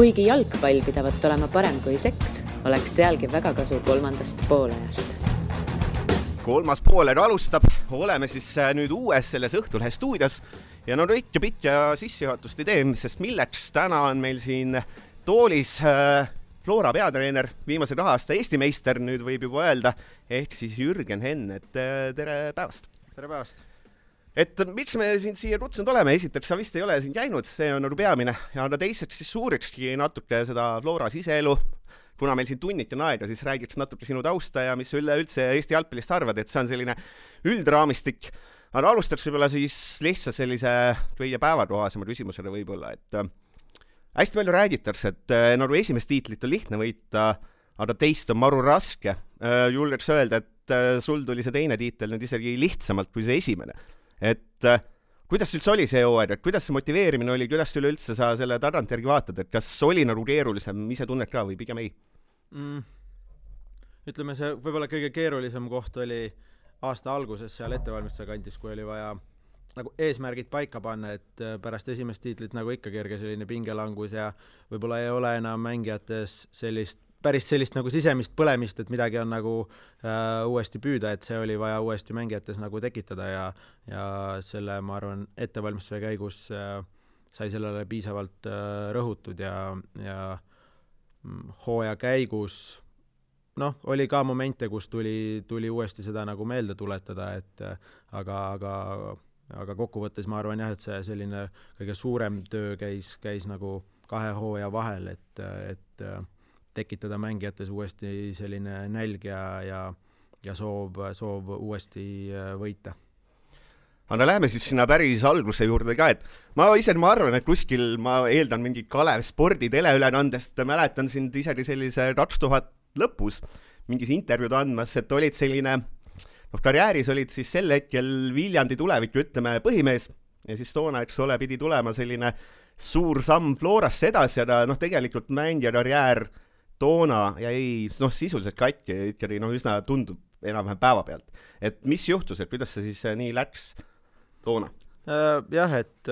Kuigi jalgpall pidavat olema parem kui seks, oleks sealgi väga kasu kolmandast poolajast. Kolmas pooled alustab, oleme siis nüüd uues selles Õhtulehe stuudios ja no Rõit ja Pitt ja sissejuhatust ei tee, sest milleks täna on meil siin toolis Flora peatreener, viimase 2 aasta Eesti meister, nüüd võib juba öelda, ehk siis Jürgen Henn, et tere päevast. Tere päevast. Et miks me siin siia kutsunud oleme, esiteks sa vist ei ole siin käinud, see on peamine, ja teiseks siis suurikski natuke seda Flora siseelu, kuna meil siin tunniti aega, siis räägiks natuke sinu tausta ja mis üldse Eesti jalgpallist arvad, et see on selline üldraamistik. Aga alustaks võib-olla siis lihtsalt sellise kõige päevatohasema küsimusele võib-olla, et hästi palju räägitakse, et nagu esimest tiitlit on lihtne võita, aga teist on maru raske. Julgeks öelda, et sul tuli see teine tiitel nüüd isegi lihtsamalt kui see esimene. Et kuidas üldse oli see hooaeg, et kuidas see motiveerimine oli, kuidas üleüldse sa selle tagantjärgi vaatad, et kas oli nagu keerulisem, ise tunned ka või pigem ei? Ütleme, see võib-olla kõige keerulisem koht oli aasta alguses seal ettevalmistuse kantis, kui oli vaja nagu eesmärgid paika panna, et pärast esimest tiitlit nagu ikka kerge selline pingelangus ja võib-olla ei ole enam mängijates päris sellist nagu sisemist põlemist, et midagi on nagu uuesti püüda, et see oli vaja uuesti mängijates nagu tekitada ja selle, ma arvan, ettevalmistuse käigus sai sellele piisavalt rõhutud ja hooaja käigus oli ka momente, kus tuli uuesti seda nagu meelde tuletada, et aga kokkuvõttes ma arvan jah, et see selline kõige suurem töö käis nagu 2 hooaja vahel, et tekitada mängijates uuesti selline nälg ja soov uuesti võita. Aga läheme siis sinna päris alguse juurde ka, et ma arvan, et kuskil ma eeldan mingi Kalev spordi teleülekandest, mäletan sind isegi sellise 2000 lõpus mingis intervjuud andmas, et olid selline, karjääris olid siis sel hetkel Viljandi tuleviku, ütleme, põhimees ja siis toona, eks ole, pidi tulema selline suur samm Florasse edasi, aga tegelikult mängija karjäär toona jäi sisuliselt katki ja ikkagi üsna tundub enam-vähem päeva pealt. Et mis juhtus, et kuidas see siis nii läks toona? Jah, et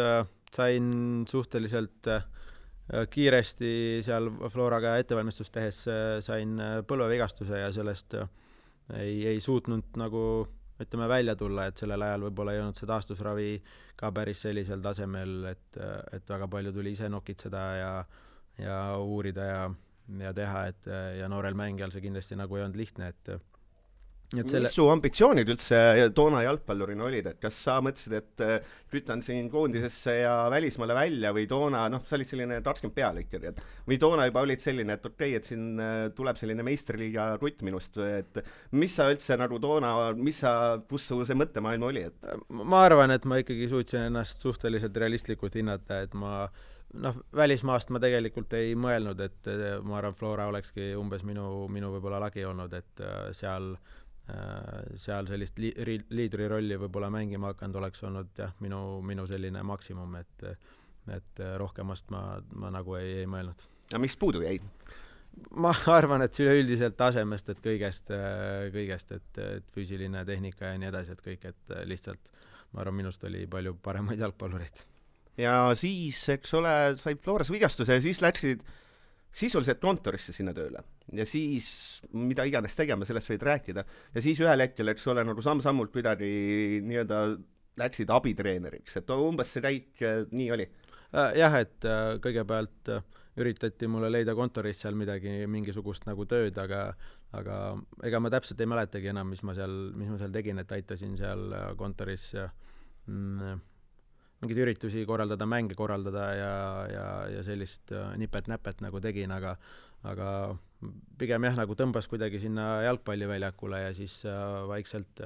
sain suhteliselt kiiresti seal Floraga ettevalmistust tehes sain põlvevigastuse ja sellest ei suutnud nagu ütleme välja tulla, et sellel ajal võib-olla ei olnud see taastusravi ka päris sellisel tasemel, et väga palju tuli ise nokitseda ja uurida ja teha, ja noorel mängijal see kindlasti nagu ei olnud lihtne, Mis su ambitsioonid üldse toona jalgpallurina olid, et kas sa mõtlesid, et pütan siin koondisesse ja välismaale välja või toona, sa olid selline 20 peale ikkagi, või toona juba olid selline, et okei, et siin tuleb selline meistriliiga rutt minust, et mis sa üldse nagu toona, kus su see mõttemaailm oli? Ma arvan, et ma ikkagi suutsin ennast suhteliselt realistlikult hinnata, et välismaast ma tegelikult ei mõelnud, et ma arvan, Flora olekski umbes minu võib-olla lagi olnud, et seal sellist liidri rolli võib-olla mängima hakanud oleks olnud minu selline maksimum, et rohkemast ma nagu ei mõelnud. Ja mis puudu jäi? Ma arvan, et üleüldiselt tasemest, et kõigest, et füüsiline tehnika ja nii edasi, et kõik, et lihtsalt ma arvan, minust oli palju paremaid jalgpallureid. Ja siis, eks ole, said Floras vigastuse ja siis läksid sisuliselt kontorisse sinna tööle. Ja siis, mida iganes tegema, sellest võid rääkida. Ja siis ühel hetkel, eks ole, nagu samm-sammult kuidagi nii-öelda läksid abitreeneriks. Et umbes see käik nii oli. Jah, et kõigepealt üritati mulle leida kontoris seal mingisugust nagu tööd, aga ega ma täpselt ei mäletagi enam, mis ma seal tegin, et aitasin seal kontoris mingid üritusi korraldada, mänge korraldada ja sellist nipet-näpet nagu tegin, aga pigem jah, nagu tõmbas kuidagi sinna jalgpalliväljakule ja siis vaikselt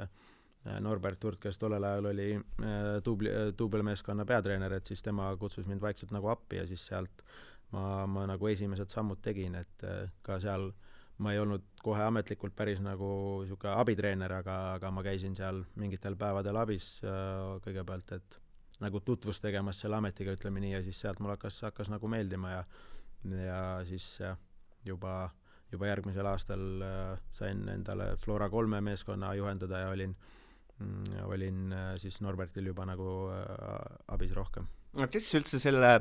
Norbert Hurt, kes tollel ajal oli duubelmeeskonna peatreener, et siis tema kutsus mind vaikselt nagu appi ja siis sealt ma nagu esimesed sammud tegin, et ka seal ma ei olnud kohe ametlikult päris nagu siuke abitreener, aga ma käisin seal mingitel päevadel abis kõigepealt, et nagu tutvus tegemas selle ametiga, ütleme nii, ja siis sealt mul hakkas nagu meeldima ja siis juba järgmisel aastal sain endale Flora 3 meeskonna juhendada ja olin siis Norbertil juba nagu abis rohkem. Kes üldse selle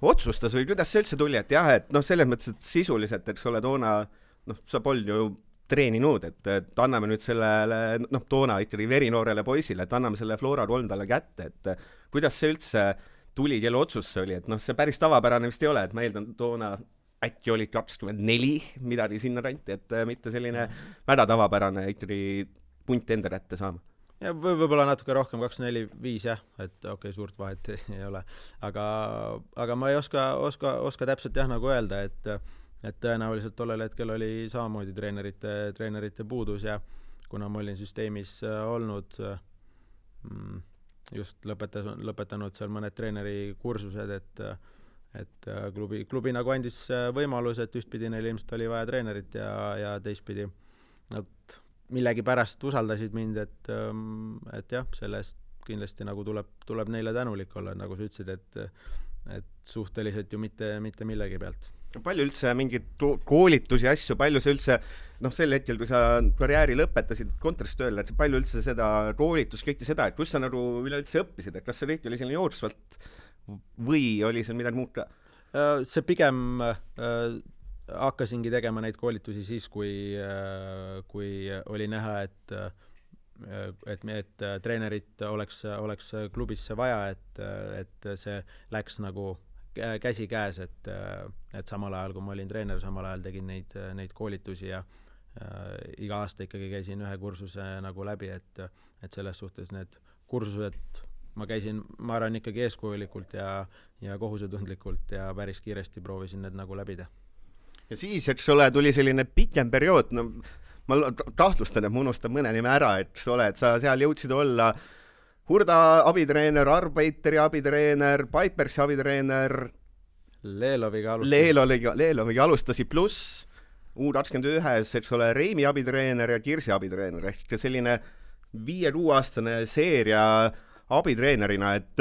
otsustas või kuidas see üldse tuli, et jah, et noh, selles mõttes, et sisuliselt, eks ole, toona sa polnud ju treeninud, et anname nüüd sellele, toona ikkagi verinoorele poisile, et anname selle Flora 3 talle kätte, et kuidas see üldse tuli, kelle otsus see oli, et see päris tavapärane vist ei ole, et ma eeldan toona äkki oli 24 midagi sinna ranti, et mitte selline väga tavapärane ikkagi punt enda kätte saama. Ja võib-olla natuke rohkem, 2-4-5 jah, et okei, suurt vahet ei ole. Aga ma ei oska täpselt jah nagu öelda, et tõenäoliselt tollel hetkel oli samamoodi treenerite puudus ja kuna ma olin süsteemis olnud, just lõpetanud seal mõned treeneri kursused, et klubi nagu andis võimalus, et ühtpidi neil ilmselt oli vaja treenerit ja teistpidi nad millegi pärast usaldasid mind, et jah, sellest kindlasti nagu tuleb neile tänulik olla, nagu sa ütlesid, et suhteliselt ju mitte millegi pealt. Palju üldse mingid koolitusi asju, palju see üldse, sel hetkel, kui sa karjääri lõpetasid kontoris tööle, et palju üldse seda koolitus, kõike seda, et kus sa nagu üleüldse õppisid, et kas see kõik oli selline jooksvalt või oli seal midagi muud ka? See pigem hakkasingi tegema neid koolitusi siis, kui oli näha, et treenerit oleks klubisse vaja, et see läks nagu käsi käes, et samal ajal, kui ma olin treener, samal ajal tegin neid koolitusi ja iga aasta ikkagi käisin ühe kursuse nagu läbi, et selles suhtes need kursused ma käisin, ma arvan, ikkagi eeskujulikult ja kohusetundlikult ja päris kiiresti proovisin need nagu läbida. Ja siis, eks ole, tuli selline pikem periood, ma tahtlustan, et ma unustan mõne nime ära, et sa seal jõudsid olla Hurda abitreener, Arbeiteri abitreener, Pipersi abitreener, Leeloviga alustasid pluss U21, eks ole, Reimi abitreener ja Kirsi abitreener, ehk selline 5-6 aastane seeria abitreenerina, et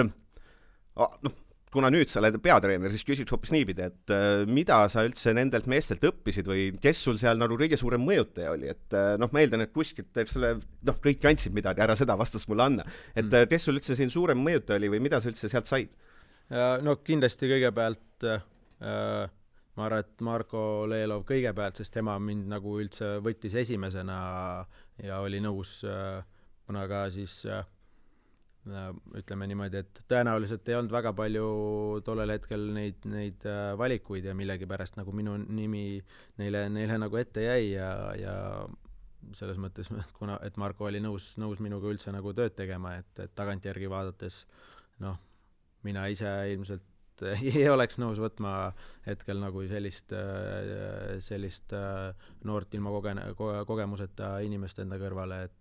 kuna nüüd sa oled peatreener, siis küsiks hoopis niipidi, et mida sa üldse nendelt meestelt õppisid või kes sul seal nagu kõige suurem mõjutaja oli, et ma eeldan, et kuskilt, eks ole, kõik andsid midagi, ära seda vastust mulle anna, et kes sul üldse siin suurem mõjutaja oli või mida sa üldse sealt said? No kindlasti kõigepealt ma arvan, et Marko Leelov kõigepealt, sest tema mind nagu üldse võttis esimesena ja oli nõus kuna ka siis ütleme niimoodi, et tõenäoliselt ei olnud väga palju tollel hetkel neid valikuid ja millegi pärast nagu minu nimi neile nagu ette jäi ja selles mõttes, et Marko oli nõus minuga üldse nagu tööd tegema, et tagantjärgi vaadates mina ise ilmselt ei oleks nõus võtma hetkel nagu sellist noort ilma kogemuseta inimest enda kõrvale,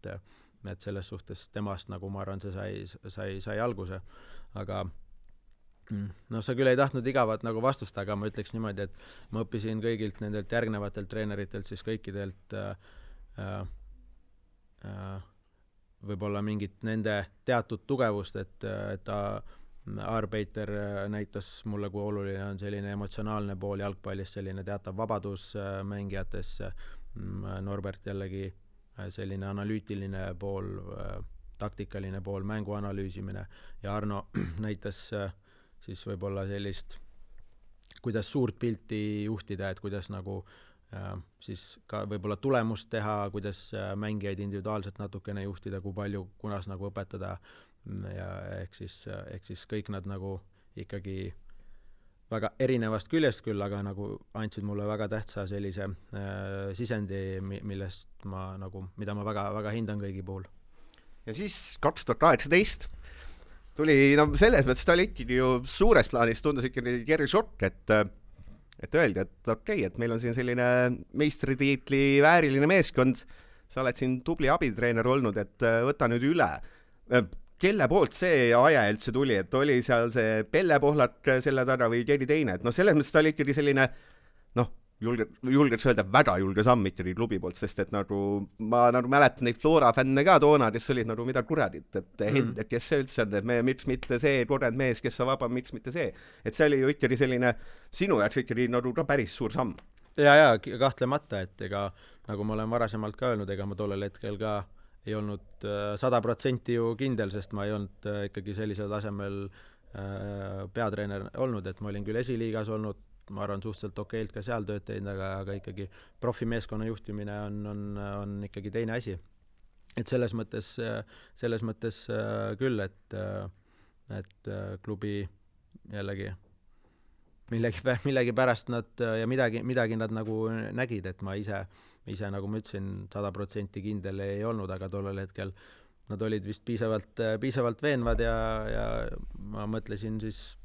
et selles suhtes temast nagu ma arvan, see sai alguse, aga sa küll ei tahtnud igavat nagu vastust, aga ma ütleks niimoodi, et ma õppisin kõigilt nendelt järgnevatelt treeneritelt siis kõikidelt võib-olla mingit nende teatud tugevust, et Arbeiter näitas mulle, kui oluline on selline emotsionaalne pool jalgpallis, selline teatav vabadus mängijates, Norbert jällegi selline analüütiline pool, taktikaline pool, mängu analüüsimine ja Arno näitas siis võib-olla sellist, kuidas suurt pilti juhtida, et kuidas nagu siis ka võib-olla tulemust teha, kuidas mängijaid individuaalselt natukene juhtida, kui palju, kunas nagu õpetada ja ehk siis kõik nad nagu ikkagi väga erinevast küljest küll, aga nagu andsid mulle väga tähtsa sellise sisendi, millest mida ma väga, väga hindan kõigi puhul. Ja siis 2018 tuli, selles mõttes ta oli ikkagi ju suures plaanis, tundus ikkagi Kerri šokk, et öeldi, et okei, et meil on siin selline meistritiitli vääriline meeskond, sa oled siin tubli abitreener olnud, et võta nüüd üle. Kelle poolt see aja üldse tuli, et oli seal see Pelle Pohlak selle taga või keegi teine, et selles mõttes ta oli ikkagi selline julgeks öelda väga julge samm ikkagi klubi poolt, sest et nagu ma mäletan neid Flora fänne ka toona, kes olid nagu mida kuradit, et Hendrik, kes see üldse on, et miks mitte see kogenud mees, kes on vaba, miks mitte see, et see oli ju ikkagi selline sinu jaoks ikkagi nagu ka päris suur samm. Ja kahtlemata, et ega nagu ma olen varasemalt ka öelnud, ega ma tollel hetkel ka ei olnud 100% ju kindel, sest ma ei olnud ikkagi sellisel tasemel peatreener olnud, et ma olin küll esiliigas olnud, ma arvan suhteliselt okeilt ka seal tööd teinud, aga ikkagi profimeeskonna juhtimine on ikkagi teine asi. Et selles mõttes küll, et klubi jällegi millegi pärast nad ja midagi nad nagu nägid, et ma ise nagu ma ütlesin 100% kindel ei olnud, aga tollel hetkel nad olid vist piisavalt veenvad ja ma mõtlesin siis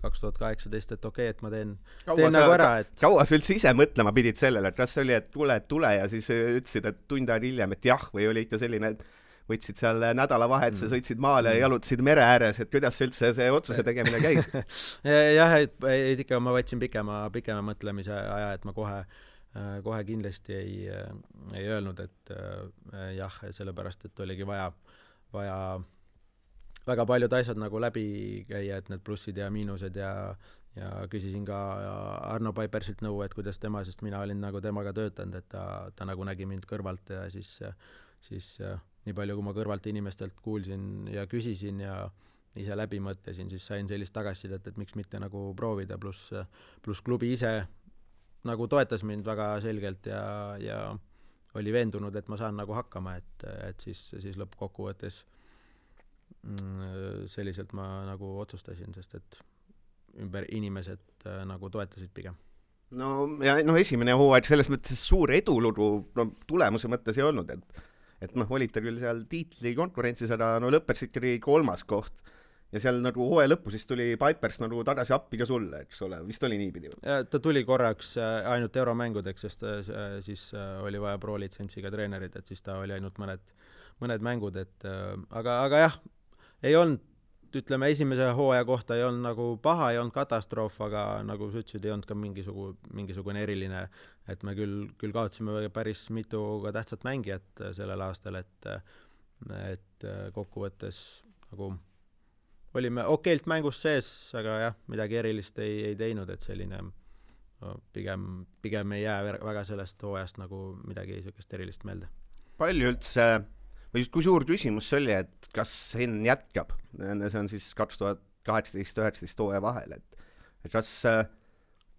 2018, et okei, et ma teen nagu ära. Kaua sa üldse ise mõtlema pidid sellele, et kas see oli, et tule ja siis ütlesid, et tund aega hiljem, et jah, või oli ikka selline, et võtsid seal nädalavahetuse, sõitsid maale ja jalutasid mere ääres, et kuidas üldse see otsuse tegemine käis? Jah, et ikka ma võtsin pikema mõtlemise aja, et ma kohe kindlasti ei öelnud, et jah, sellepärast, et oligi vaja väga paljud asjad nagu läbi käia, et need plussid ja miinused ja küsisin ka Arno Paipersilt nõu, et kuidas tema, sest mina olin nagu temaga töötanud, et ta nagu nägi mind kõrvalt ja siis nii palju, kui ma kõrvalt inimestelt kuulsin ja küsisin ja ise läbi mõtlesin, siis sain sellist tagasisidet, et miks mitte nagu proovida, pluss klubi ise nagu toetas mind väga selgelt ja oli veendunud, et ma saan nagu hakkama, et siis lõppkokkuvõttes selliselt ma nagu otsustasin, sest et ümber inimesed nagu toetasid pigem. No esimene hooaeg selles mõttes suur edulugu tulemuse mõttes ei olnud, et olite küll seal tiitli konkurentsis, aga lõpetasid ikkagi 3. koht ja seal nagu hooaja lõppu siis tuli Pipers nagu tagasi appi ka sulle, eks ole, vist oli niipidi? Ta tuli korraks ainult euromängudeks, sest siis oli vaja pro-litsentsiga treenerid, et siis ta oli ainult mõned mängud, et aga jah, ei olnud, ütleme, esimese hooaja kohta ei olnud nagu paha, ei olnud katastroof, aga nagu sa ütlesid, ei olnud ka mingisugune eriline, et me küll kaotasime päris mitu ka tähtsat mängijat sellel aastal, et kokkuvõttes nagu olime okeilt mängus sees, aga jah, midagi erilist ei teinud, et selline pigem ei jää väga sellest hooajast nagu midagi sellist erilist meelde. Palju üldse või kui suur küsimus see oli, et kas Henn jätkab? See on siis 2018-19 hooaja vahel, et kas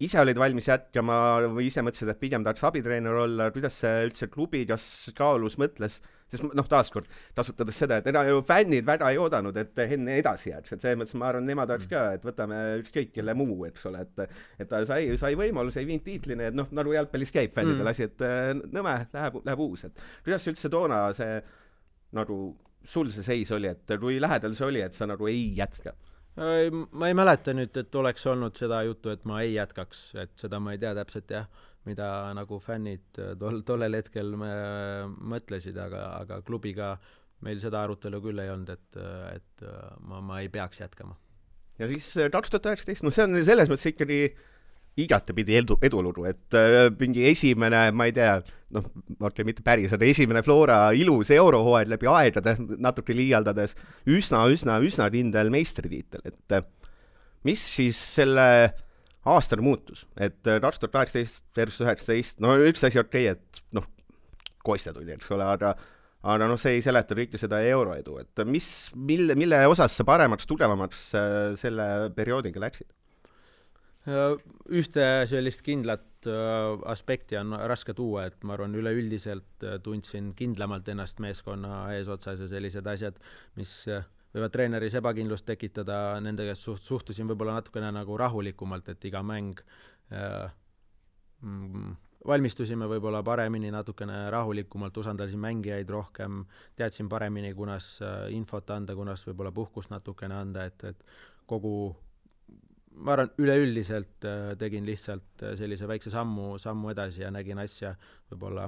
ise olid valmis jätkama või ise mõtlesid, et pigem tahaks abitreener olla, kuidas see üldse klubi, kas kaalus mõtles, sest taaskord kasutades seda, et ju fännid väga ei oodanud, et Henn edasi jääks, et see mõttes ma arvan, nemad oleks ka, et võtame ükskõik kelle muu, eks ole, et ta sai võimalus, ei viinud tiitlini, et nagu jalgpallis käib fännidel asi, et nõme, läheb uus, et kuidas üldse toona see nagu sul see seis oli, et kui lähedal see oli, et sa nagu ei jätka? Ma ei mäleta nüüd, et oleks olnud seda juttu, et ma ei jätkaks, et seda ma ei tea täpselt jah, mida nagu fännid tollel hetkel mõtlesid, aga klubiga meil seda arutelu küll ei olnud, et ma ei peaks jätkama. Ja siis 2019, see on selles mõttes ikkagi igatepidi edulugu, et mingi esimene, ma ei tea, mitte päris, aga esimene Flora ilus eurohooaeg läbi aegade, natuke liialdades, üsna kindel meistritiitel, et mis siis selle aastal muutus, et 2018 versus 19, üks asi okei, et Kostja tuli, eks ole, aga see ei seleta kõike seda euroedu, et mille osas sa paremaks, tugevamaks selle perioodiga läksid? Ühte sellist kindlat aspekti on raske tuua, et ma arvan, üleüldiselt tundsin kindlamalt ennast meeskonna eesotsas ja sellised asjad, mis võivad treeneris ebakindlust tekitada, nendega suhtusin võib-olla natukene nagu rahulikumalt, et iga mäng valmistusime võib-olla paremini, natukene rahulikumalt, usaldasin mängijaid rohkem, teadsin paremini, kunas infot anda, kunas võib-olla puhkust natukene anda, et ma arvan, üleüldiselt tegin lihtsalt sellise väikse sammu edasi ja nägin asja, võib-olla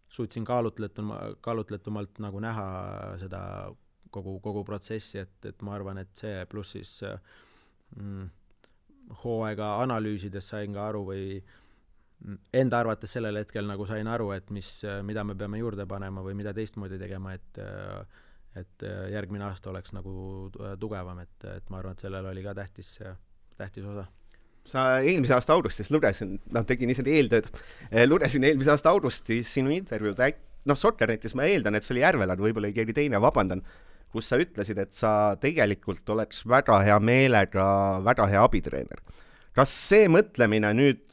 suutsin kaalutletumalt nagu näha seda kogu protsessi, et ma arvan, et see pluss siis hooaega analüüsides sain ka aru või enda arvates sellel hetkel nagu sain aru, et mida me peame juurde panema või mida teistmoodi tegema, et järgmine aasta oleks nagu tugevam, et ma arvan, et sellel oli ka tähtis osa. Sa eelmise aasta augustis lugesin, tegin ise eeltööd, lugesin eelmise aasta augustis sinu intervjuud, Soccernetis ma eeldan, et see oli Järvel, aga võib-olla keegi teine, vabandan, kus sa ütlesid, et sa tegelikult oleks väga hea meelega väga hea abitreener. Kas see mõtlemine nüüd,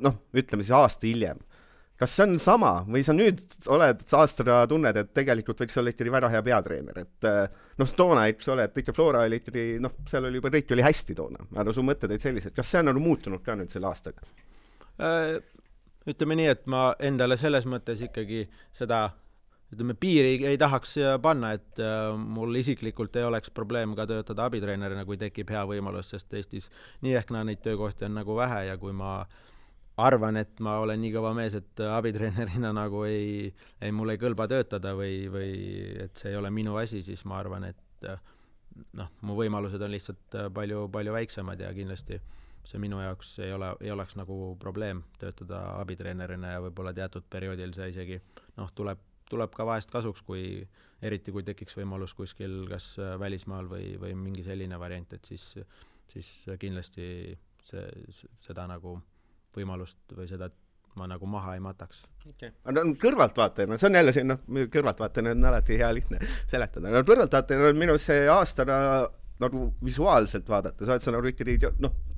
noh, ütleme siis aasta hiljem, kas see on sama või sa nüüd oled aastaga tunned, et tegelikult võiks olla ikkagi väga hea peatreener, et noh, toona, eks ole, et ikka Flora oli ikkagi, noh, seal oli juba kõik oli hästi toona, aga su mõtted olid sellised, kas see on nagu muutunud ka nüüd selle aastaga? Ütleme nii, et ma endale selles mõttes ikkagi seda, ütleme, piiri ei tahaks panna, et mul isiklikult ei oleks probleem ka töötada abitreenerina, kui tekib hea võimalus, sest Eestis nii ehk neid töökohti on nagu vähe ja kui ma arvan, et ma olen nii kõva mees, et abitreenerina nagu mul ei kõlba töötada või et see ei ole minu asi, siis ma arvan, et noh, mu võimalused on lihtsalt palju väiksemad ja kindlasti see minu jaoks ei oleks nagu probleem töötada abitreenerina ja võib-olla teatud perioodil see isegi noh, tuleb ka vahest kasuks, eriti kui tekiks võimalus kuskil kas välismaal või mingi selline variant, et siis kindlasti seda nagu võimalust või seda ma nagu maha ei mataks. Okay. No, kõrvaltvaatajana, see on jälle siin, kõrvaltvaatajana on alati hea lihtne seletada. No, kõrvaltvaatajana on minu see aastana nagu visuaalselt vaadata, sa oled sa nagu ikkagi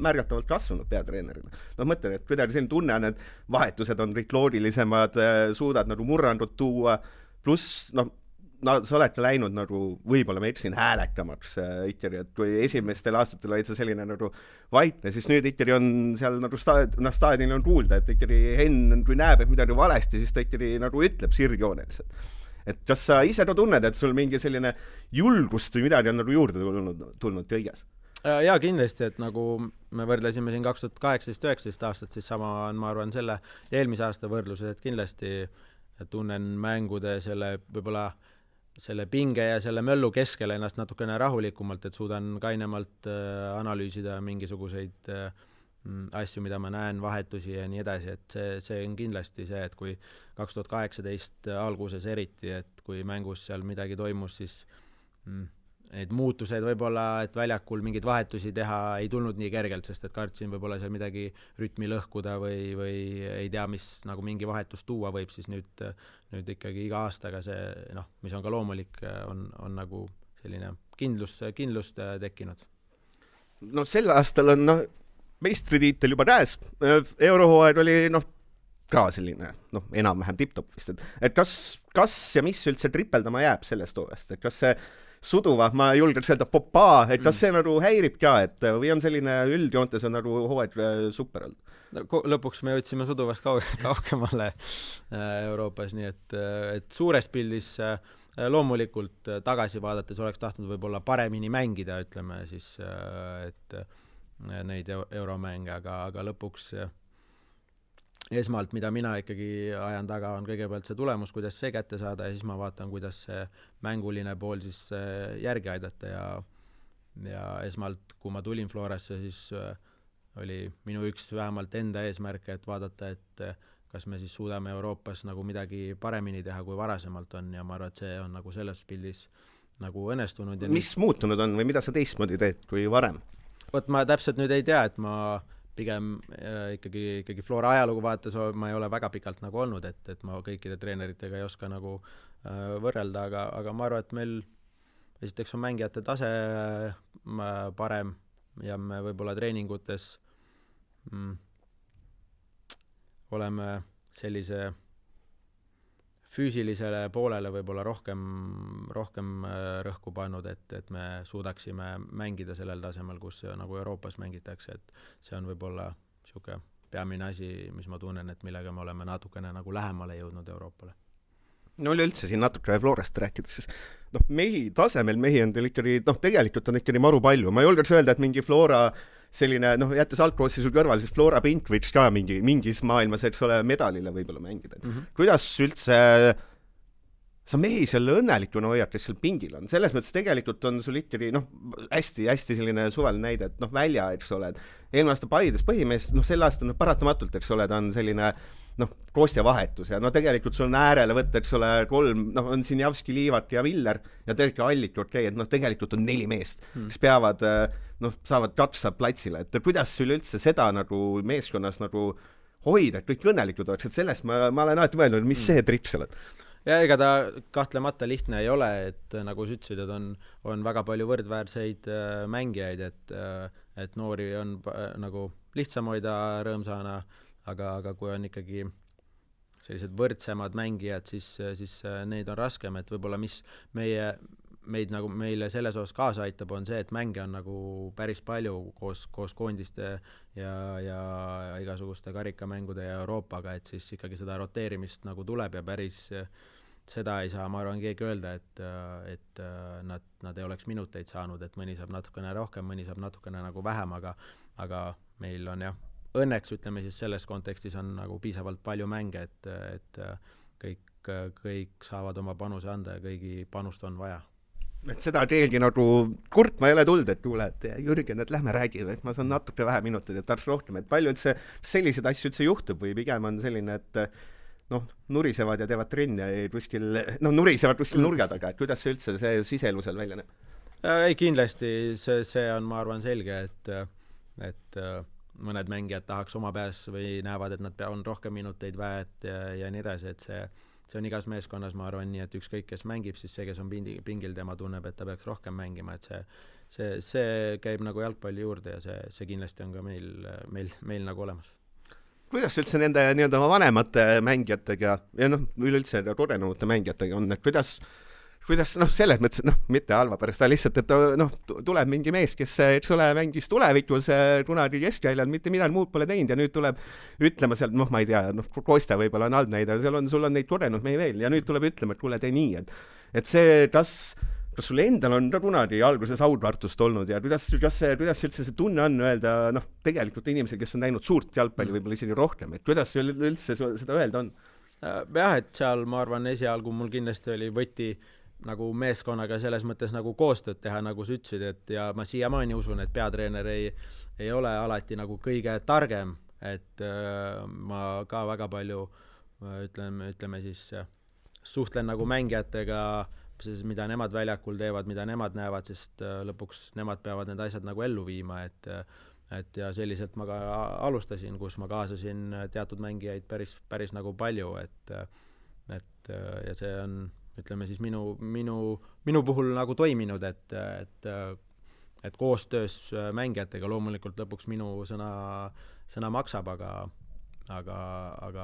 märgatavalt kasvanud peatreenerina. Mõtlen, et kuidagi selline tunne on, et vahetused on kõik loogilisemad, suudad nagu murrandud tuua, pluss sa oled läinud nagu, võib-olla ma eksin häälekamaks ikkagi, et kui esimestel aastatel olid sa selline nagu vaikne, siis nüüd ikkagi on seal nagu staadionil on kuulda, et ikkagi Henn, kui näeb, et midagi valesti, siis ta ikkagi nagu ütleb sirgjooneliselt. Et kas sa ise ka tunned, et sul mingi selline julgust või midagi on nagu juurde tulnud kõiges? Jaa, kindlasti, et nagu me võrdlesime siin 2018-19 aastat, siis sama on, ma arvan, selle eelmise aasta võrdluses, et kindlasti tunnen mängude võib-olla selle pinge ja selle möllu keskel ennast natukene rahulikumalt, et suudan kainemalt analüüsida mingisuguseid asju, mida ma näen, vahetusi ja nii edasi, et see on kindlasti see, et kui 2018 alguses eriti, et kui mängus seal midagi toimus, siis need muutused võib-olla, et väljakul mingeid vahetusi teha ei tulnud nii kergelt, sest et kartsin võib-olla seal midagi rütmi lõhkuda või ei tea, mis nagu mingi vahetus tuua võib, siis nüüd ikkagi iga aastaga see, mis on ka loomulik, on nagu selline kindlust tekkinud. No sel aastal on meistritiitel juba käes. Eurohooaeg oli ka selline enam-vähem tipp-top vist, et kas ja mis üldse tripeldama jääb sellest hooajast, et kas see suduva, ma julgeks öelda popaa, et kas see nagu häirib ka, et või on selline üldjoontes on nagu hooaeg super olnud? Lõpuks me jõudsime suduvast kaugemale Euroopas, nii et suures pildis loomulikult tagasi vaadates oleks tahtnud võib-olla paremini mängida, ütleme siis, et neid euromänge, aga lõpuks esmalt, mida mina ikkagi ajan taga, on kõigepealt see tulemus, kuidas see kätte saada ja siis ma vaatan, kuidas see mänguline pool siis järgi aidata ja esmalt, kui ma tulin Florasse, siis oli minu üks vähemalt enda eesmärk, et vaadata, et kas me siis suudame Euroopas nagu midagi paremini teha, kui varasemalt on ja ma arvan, et see on nagu selles pildis nagu õnnestunud. Mis muutunud on või mida sa teistmoodi teed kui varem? Vot ma täpselt nüüd ei tea, et ma pigem ikkagi Flora ajalugu vaates ma ei ole väga pikalt nagu olnud, et ma kõikide treeneritega ei oska nagu võrrelda, aga ma arvan, et meil esiteks on mängijate tase parem ja me võib-olla treeningutes oleme sellise füüsilisele poolele võib-olla rohkem rõhku pannud, et me suudaksime mängida sellel tasemel, kus nagu Euroopas mängitakse, et see on võib-olla siuke peamine asi, mis ma tunnen, et millega me oleme natukene nagu lähemale jõudnud Euroopale. No üleüldse siin natuke Florast rääkides, tasemel mehi on teil ikkagi, tegelikult on ikkagi maru palju. Ma julgeks öelda, et mingi Flora selline, jättes Alcrossi sul kõrval, siis Flora Pink võiks ka mingis maailmas, eks ole, medalile võib-olla mängida. Kuidas üldse sa mehi selle õnnelikuna hoiad, kes seal pingil on? Selles mõttes tegelikult on sul ikkagi hästi selline suvaline näide, et välja, eks ole, eelmine aasta Paides põhimees, sel aastal paratamatult, eks ole, ta on selline Kostja vahetus ja tegelikult sul on äärele võtta, eks ole, 3, on siin Javski, Liivat ja Viller ja tegelikult Allik, et tegelikult on 4 meest, kes peavad, saavad katsa platsile, et kuidas sul üldse seda nagu meeskonnas nagu hoida, et kõik õnnelikud oleks, et sellest ma olen alati mõelnud, mis see tripp seal on? Ja ega ta kahtlemata lihtne ei ole, et nagu sa ütlesid, et on väga palju võrdväärseid mängijaid, et noori on nagu lihtsam hoida rõõmsana, aga kui on ikkagi sellised võrdsemad mängijad, siis neid on raskem, et võib-olla mis meile selles osas kaasa aitab, on see, et mänge on nagu päris palju koos koondiste ja igasuguste karikamängude ja Euroopaga, et siis ikkagi seda roteerimist nagu tuleb ja päris seda ei saa, ma arvan, keegi öelda, et nad ei oleks minuteid saanud, et mõni saab natukene rohkem, mõni saab natukene nagu vähem, aga meil on jah, õnneks ütleme siis selles kontekstis on nagu piisavalt palju mänge, et kõik saavad oma panuse anda ja kõigi panust on vaja. Et seda teelgi nagu kurtma ei ole tulnud, et kuule, et Jürgen, et lähme räägime, et ma saan natuke vähe minuteid, et tarvitse rohkem, et palju üldse selliseid asju üldse juhtub või pigem on selline, et nurisevad ja teevad trenni ja nurisevad kuskil nurga taga, et kuidas see üldse see siselusel välja näeb? Ei, kindlasti see on, ma arvan, selge, et mõned mängijad tahaks oma pääs või näevad, et nad on rohkem minuteid väärt ja nii edasi, et see on igas meeskonnas, ma arvan nii, et ükskõik, kes mängib, siis see, kes on pingil, tema tunneb, et ta peaks rohkem mängima, et see käib nagu jalgpalli juurde ja see kindlasti on ka meil nagu olemas. Kuidas üldse nende nii-öelda vanemate mängijatega ja üleüldse kodenumate mängijatega on, et kuidas selles mõttes, mitte halva pärast, lihtsalt, et tuleb mingi mees, kes, eks ole, mängis tulevikus kunagi keskväljal, mitte midagi muud pole teinud ja nüüd tuleb ütlema sealt, ma ei tea, Kosta võib-olla on halb näide, sul on neid kodenud mehi veel ja nüüd tuleb ütlema, et kuule, tee nii, et see, kas sul endal on ka kunagi alguses audvartust olnud ja kuidas üldse see tunne on öelda, tegelikult inimesel, kes on näinud suurt jalgpalli võib-olla isegi rohkem, et kuidas üldse seda öelda on? Jah, et seal, ma arvan, esialgu mul kindlasti oli võti nagu meeskonnaga selles mõttes nagu koostööd teha, nagu sa ütlesid, et ja ma siiamaani usun, et peatreener ei ole alati nagu kõige targem, et ma ka väga palju ütleme siis suhtlen nagu mängijatega, mida nemad väljakul teevad, mida nemad näevad, sest lõpuks nemad peavad need asjad nagu ellu viima, et ja selliselt ma ka alustasin, kus ma kaasasin teatud mängijaid päris nagu palju, et ja see on ütleme siis minu puhul nagu toiminud, et koostöös mängijatega loomulikult lõpuks minu sõna maksab, aga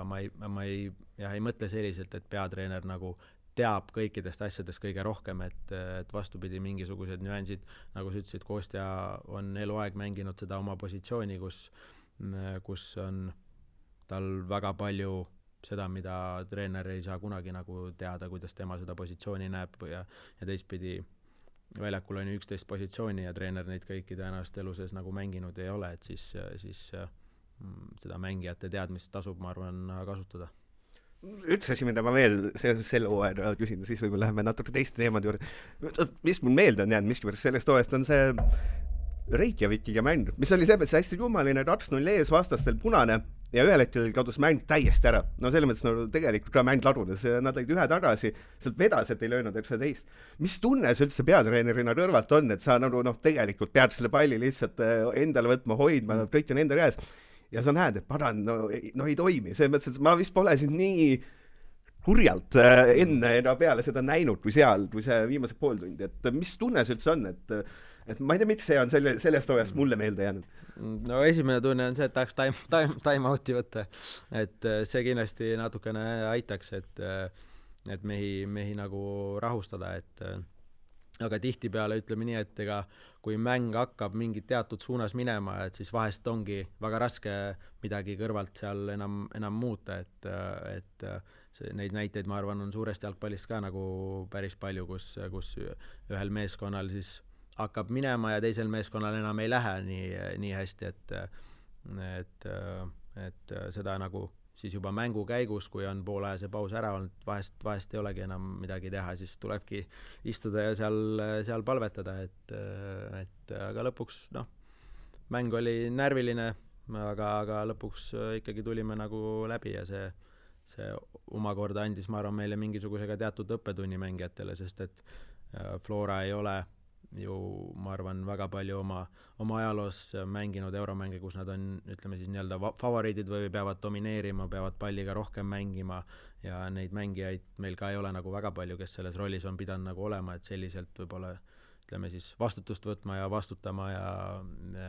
ma ei mõtle selliselt, et peatreener nagu teab kõikidest asjadest kõige rohkem, et vastupidi mingisugused nüansid, nagu sa ütlesid, Kostja on eluaeg mänginud seda oma positsiooni, kus on tal väga palju seda, mida treener ei saa kunagi nagu teada, kuidas tema seda positsiooni näeb ja teistpidi väljakul on 11 positsiooni ja treener neid kõiki tõenäoliselt elu sees nagu mänginud ei ole, et siis seda mängijate teadmist tasub, ma arvan, kasutada. Üks asi, mida ma veel selle hooaja küsin, siis võib-olla läheme natuke teiste teemade juurde. Mis mul meelde on jäänud miskipärast sellest hooajast on see Reykjavikiga mäng, mis oli see hästi kummaline, 2-0 ees vastastel punane ja ühel hetkel kadus mäng täiesti ära. Selles mõttes tegelikult ka mäng ladunes, nad olid ühe tagasi, sealt vedas, et ei löönud 19. Mis tunne see üldse peatreenerina kõrvalt on, et sa tegelikult pead selle palli lihtsalt endale võtma, hoidma, kõik on enda käes ja sa näed, et paran, ei toimi. See mõttes, et ma vist pole siin nii kurjalt enne ja peale seda näinud kui see viimase pool tundi, et mis tunne see üldse on, et ma ei tea, miks see on sellest hooajast mulle meelde jäänud. No esimene tunne on see, et tahaks time out'i võtta, et see kindlasti natukene aitaks, et mehi nagu rahustada, aga tihtipeale ütleme nii, et ega kui mäng hakkab mingit teatud suunas minema, et siis vahest ongi väga raske midagi kõrvalt seal enam muuta, et neid näiteid, ma arvan, on suurest jalgpallist ka nagu päris palju, kus ühel meeskonnal siis hakkab minema ja teisel meeskonnal enam ei lähe nii hästi, et seda nagu siis juba mängu käigus, kui on poolajase paus ära olnud, vahest ei olegi enam midagi teha, siis tulebki istuda ja seal palvetada, aga lõpuks mäng oli närviline, aga lõpuks ikkagi tulime nagu läbi ja see omakorda andis, ma arvan, meile mingisugusega teatud õppetunni mängijatele, sest et Flora ei ole ju ma arvan väga palju oma ajaloos mänginud euromänge, kus nad on, ütleme siis nii-öelda favoriidid või peavad domineerima, peavad palliga rohkem mängima ja neid mängijaid meil ka ei ole nagu väga palju, kes selles rollis on pidanud nagu olema, et selliselt võib-olla ütleme siis vastutust võtma ja vastutama ja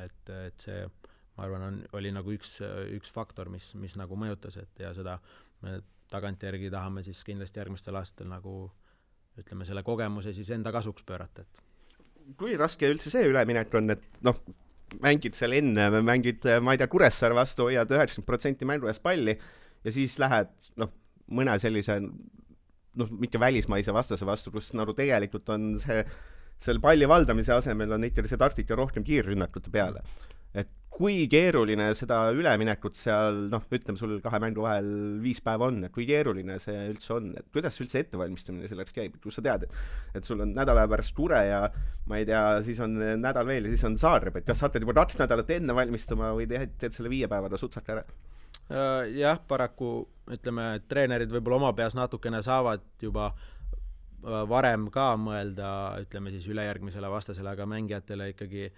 et see, ma arvan, oli nagu üks faktor, mis nagu mõjutas, et ja seda me tagantjärgi tahame siis kindlasti järgmistel aastatel nagu ütleme selle kogemuse siis enda kasuks pöörata, et kui raske üldse see üleminek on, et mängid seal enne, mängid, ma ei tea, Kuressaare vastu, hoiad 90% mängu eest palli ja siis lähed, mõne sellise, mitte välismaise vastase vastu, kus nagu tegelikult on selle palli valdamise asemel on ikkagi see taktika rohkem kiirrünnakute peale. Et kui keeruline seda üleminekut seal, ütleme sul 2 mängu vahel 5 päeva on, et kui keeruline see üldse on, et kuidas üldse ettevalmistamine selleks käib, kus sa tead, et sul on nädala pärast Ture ja ma ei tea, siis on nädal veel ja siis on Zagreb, et kas sa hakkad juba 2 nädalat enne valmistuma või teed selle 5 päevada sutsaka ära? Jah, paraku ütleme, treenerid võib-olla oma peas natukene saavad juba varem ka mõelda, ütleme siis ülejärgmisele vastasele, aga mängijatele ikkagi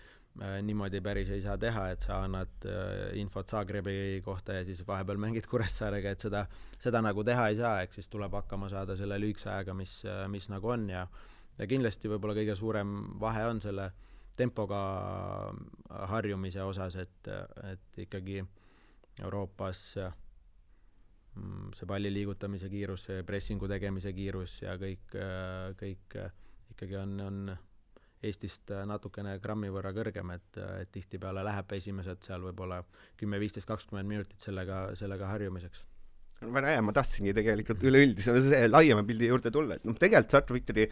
niimoodi päris ei saa teha, et sa annad infot Zagrebi kohta ja siis vahepeal mängid Kuressaarega, et seda nagu teha ei saa, ehk siis tuleb hakkama saada selle lühikese ajaga, mis nagu on ja kindlasti võib-olla kõige suurem vahe on selle tempoga harjumise osas, et ikkagi Euroopas see palli liigutamise kiirus, pressingu tegemise kiirus ja kõik ikkagi on Eestist natukene grammi võrra kõrgem, et tihtipeale läheb esimesed seal võib-olla 10, 15, 20 minutit sellega harjumiseks. Väga hea, ma tahtsingi tegelikult üleüldise laiema pildi juurde tulla, et tegelikult Tartu ikkagi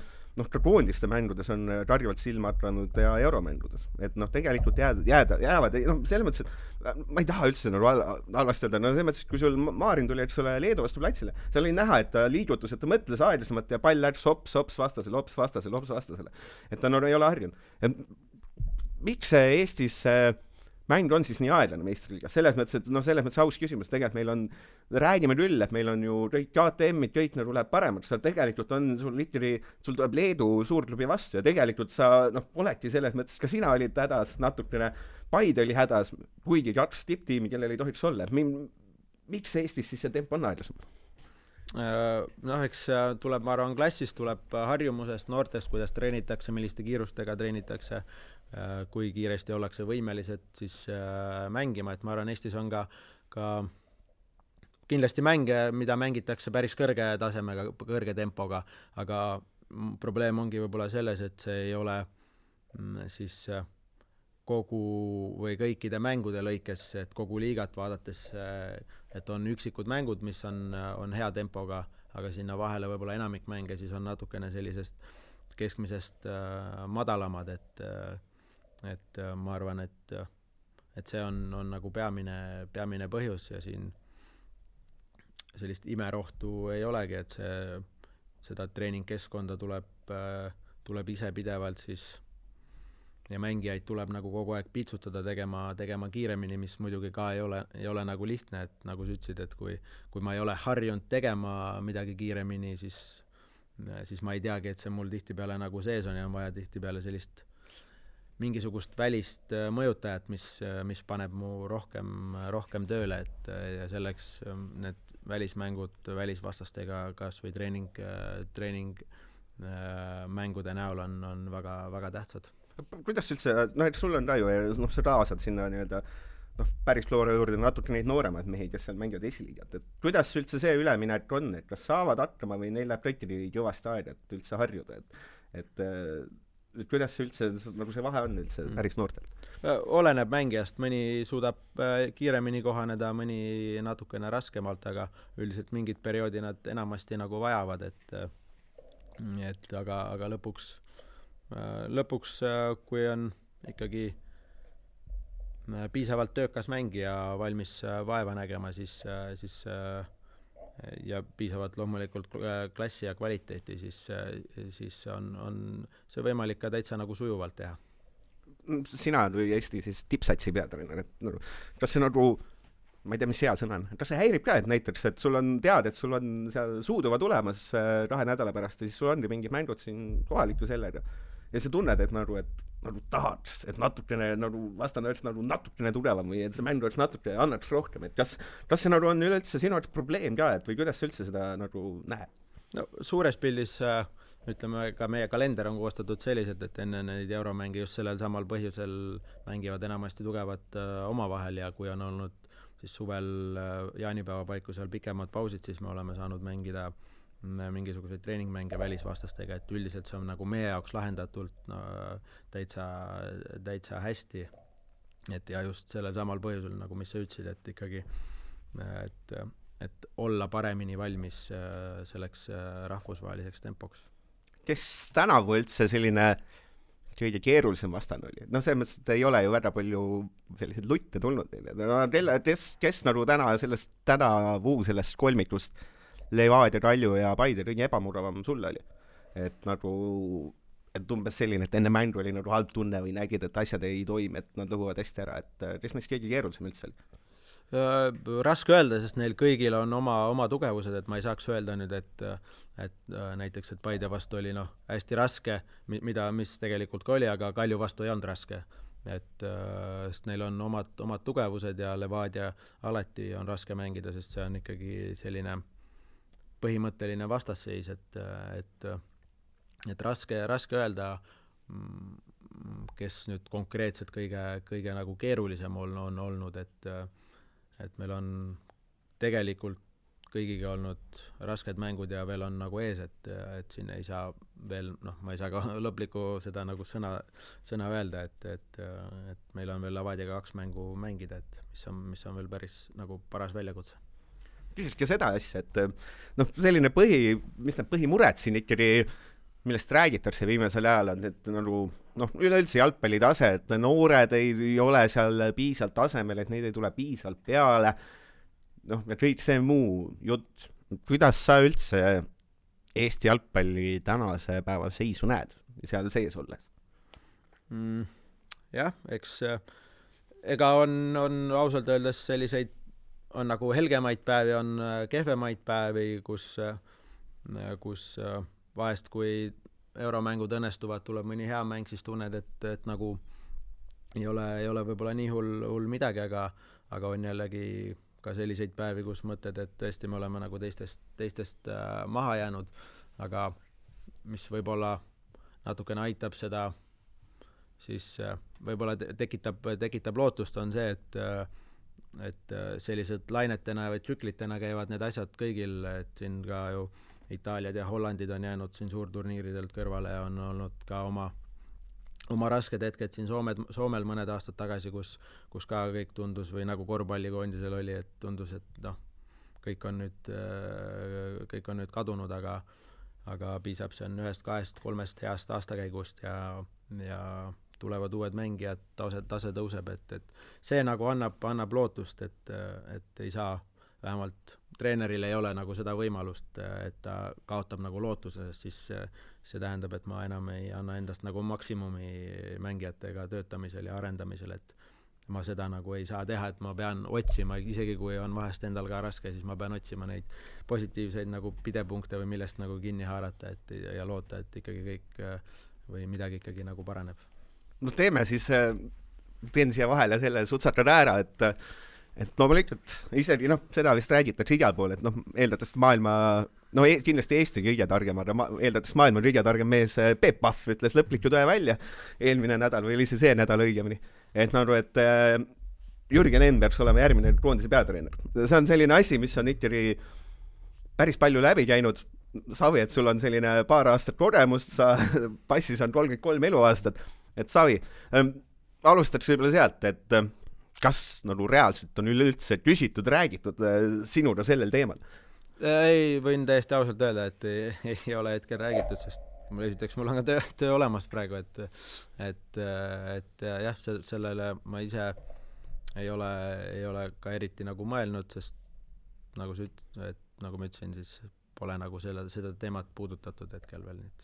ka koondiste mängudes on karjuvalt silma hakanud ja euromängudes, et tegelikult jäävad, selles mõttes, et ma ei taha üldse halvasti öelda, selles mõttes, et kui sul Maarin tuli, eks ole, Leedu vastu platsile, seal oli näha, et ta liigutus, et ta mõtles aeglasemalt ja pall läks hops vastasele, et ta ei ole harjunud. Miks see Eestis mäng on siis nii aeglane meistriliigas? Selles mõttes aus küsimus, tegelikult räägime küll, et meil on ju kõik KTM-id, kõik nagu läheb paremaks, sa tegelikult on sul tuleb Leedu suurklubi vastu ja tegelikult sa oledki selles mõttes, ka sina olid hädas natukene, Paide oli hädas, kuigi 2 tipptiimi, kellel ei tohiks olla. Miks Eestis siis see tempo on aeglasem? Eks tuleb, ma arvan, klassist tuleb harjumusest, noortest, kuidas treenitakse, milliste kiirustega treenitakse, kui kiiresti ollakse võimelised siis mängima, et ma arvan, Eestis on ka kindlasti mänge, mida mängitakse päris kõrge tasemega, kõrge tempoga, aga probleem ongi võib-olla selles, et see ei ole siis kogu või kõikide mängude lõikes, et kogu liigat vaadates, et on üksikud mängud, mis on hea tempoga, aga sinna vahele võib-olla enamik mänge siis on natukene sellisest keskmisest madalamad, et ma arvan, et see on nagu peamine põhjus ja siin sellist imerohtu ei olegi, et seda treeningkeskkonda tuleb ise pidevalt siis ja mängijaid tuleb nagu kogu aeg pitsutada tegema kiiremini, mis muidugi ka ei ole nagu lihtne, et nagu sa ütlesid, et kui ma ei ole harjunud tegema midagi kiiremini, siis ma ei teagi, et see mul tihtipeale nagu sees on ja on vaja tihtipeale sellist mingisugust välist mõjutajat, mis paneb mu rohkem tööle, et ja selleks need välismängud välisvastastega kas või treening mängude näol on väga, väga tähtsad. Kuidas üldse, et sul on ka ju, sa kaasad sinna nii-öelda päris Flora juurde natuke neid nooremaid mehi, kes seal mängivad esiliigat, et kuidas üldse see üleminek on, et kas saavad hakkama või neil läheb kõikide kõvasti aega, et üldse harjuda, et kuidas üldse, nagu see vahe on üldse päris noortel? Oleneb mängijast, mõni suudab kiiremini kohaneda, mõni natukene raskemalt, aga üldiselt mingid perioodi nad enamasti nagu vajavad, aga lõpuks, kui on ikkagi piisavalt töökas mängija valmis vaeva nägema, siis ja piisavalt loomulikult klassi ja kvaliteeti, siis on see võimalik ka täitsa nagu sujuvalt teha. Sina või Eesti siis tippsatsi peatreener, et kas see nagu, ma ei tea, mis hea sõna on, kas see häirib ka, et näiteks, et sul on teada, et sul on seal Suuduva tulemas 2 nädala pärast ja siis sul ongi mingid mängud siin kohaliku sellega ja sa tunned, et nagu tahaks, et natukene nagu vastane oleks nagu natukene tugevam või et see mäng oleks natuke annaks rohkem, et kas see nagu on üleüldse sinu jaoks probleem ka, et või kuidas sa üldse seda nagu näed? No suures pildis ütleme, ka meie kalender on koostatud selliselt, et enne neid euromänge just sellel samal põhjusel mängivad enamasti tugevat omavahel ja kui on olnud siis suvel jaanipäeva paiku seal pikemad pausid, siis me oleme saanud mängida mingisuguseid treeningmänge välisvastastega, et üldiselt see on nagu meie jaoks lahendatult täitsa hästi. Et ja just sellel samal põhjusel, nagu mis sa ütlesid, et ikkagi et olla paremini valmis selleks rahvusvaheliseks tempoks. Kes tänavu üldse selline kõige keerulisem vastane oli? No selles mõttes, et ei ole ju väga palju selliseid lutte tulnud neile. Kes nagu tänavu sellest kolmikust Levadia, Kalju ja Paide kõige ebamuravam sulle oli? Et nagu, et umbes selline, et enne mängu oli nagu halb tunne või nägid, et asjad ei toimi, et nad lõhuvad hästi ära, et kes neist kõige keerulisem üldse oli? Raske öelda, sest neil kõigil on oma tugevused, et ma ei saaks öelda nüüd, et näiteks, et Paide vastu oli hästi raske, mis tegelikult ka oli, aga Kalju vastu ei olnud raske. Sest neil on omad tugevused ja Levadia alati on raske mängida, sest see on ikkagi selline põhimõtteline vastasseis, et raske öelda, kes nüüd konkreetselt kõige nagu keerulisem on olnud, et meil on tegelikult kõigiga olnud rasked mängud ja veel on nagu ees, et siin ei saa veel, ma ei saa ka lõplikku seda nagu sõna öelda, et meil on veel Levadiaga 2 mängu mängida, et mis on veel päris nagu paras väljakutse. Küsiski seda asja, et selline mis need põhimured siin ikkagi, millest räägitakse viimasel ajal on, et nagu üleüldse jalgpalli tase, et noored ei ole seal piisalt tasemel, et neid ei tule piisalt peale, ja kõik see muu jutt. Kuidas sa üldse Eesti jalgpalli tänase päeva seisu näed seal sees olles? Jah, eks ega on ausalt öeldes selliseid on nagu helgemaid päevi, on kehvemaid päevi, kus vahest, kui euromängud õnnestuvad, tuleb mõni hea mäng, siis tunned, et nagu ei ole võib-olla nii hull midagi, aga on jällegi ka selliseid päevi, kus mõtted, et tõesti me oleme nagu teistest maha jäänud, aga mis võib-olla natukene aitab seda, siis võib-olla tekitab lootust, on see, et sellised lainetena või tsüklitena käivad need asjad kõigil, et siin ka ju Itaaliad ja Hollandid on jäänud siin suurturniiridelt kõrvale ja on olnud ka oma rasked hetked siin Soomel mõned aastad tagasi, kus ka kõik tundus või nagu korvpallikoondisel oli, et tundus, et kõik on nüüd kadunud, aga piisab see on 1, 2, 3 heast aastakäigust ja tulevad uued mängijad, tase tõuseb, et see nagu annab lootust, et ei saa, vähemalt treeneril ei ole nagu seda võimalust, et ta kaotab nagu lootuse, siis see tähendab, et ma enam ei anna endast nagu maksimumi mängijatega töötamisel ja arendamisel, et ma seda nagu ei saa teha, et ma pean otsima, isegi kui on vahest endal ka raske, siis ma pean otsima neid positiivseid nagu pidepunkte või millest nagu kinni haarata ja loota, et ikkagi kõik või midagi ikkagi nagu paraneb. Teeme siis, teen siia vahele selle sutsakad ära, et loomulikult isegi seda vist räägitakse igal pool, et eeldates maailma, kindlasti Eesti kõige targem, aga eeldates maailma kõige targem mees Peep Pahv ütles lõpliku tõe välja eelmine nädal või oli see nädal õigemini, et Jürgen Enn peaks olema järgmine koondise peatreener. See on selline asi, mis on ikkagi päris palju läbi käinud. Savi, et sul on selline paar aastat kogemust, sa passis on 33 eluaastat, et Savi, alustaks võib-olla sealt, et kas nagu reaalselt on üleüldse küsitud, räägitud sinuga sellel teemal? Ei, võin täiesti ausalt öelda, et ei ole hetkel räägitud, sest mul on ka töö olemas praegu, et jah, sellele ma ise ei ole ka eriti nagu mõelnud, sest nagu ma ütlesin, siis pole nagu seda teemat puudutatud hetkel veel nüüd.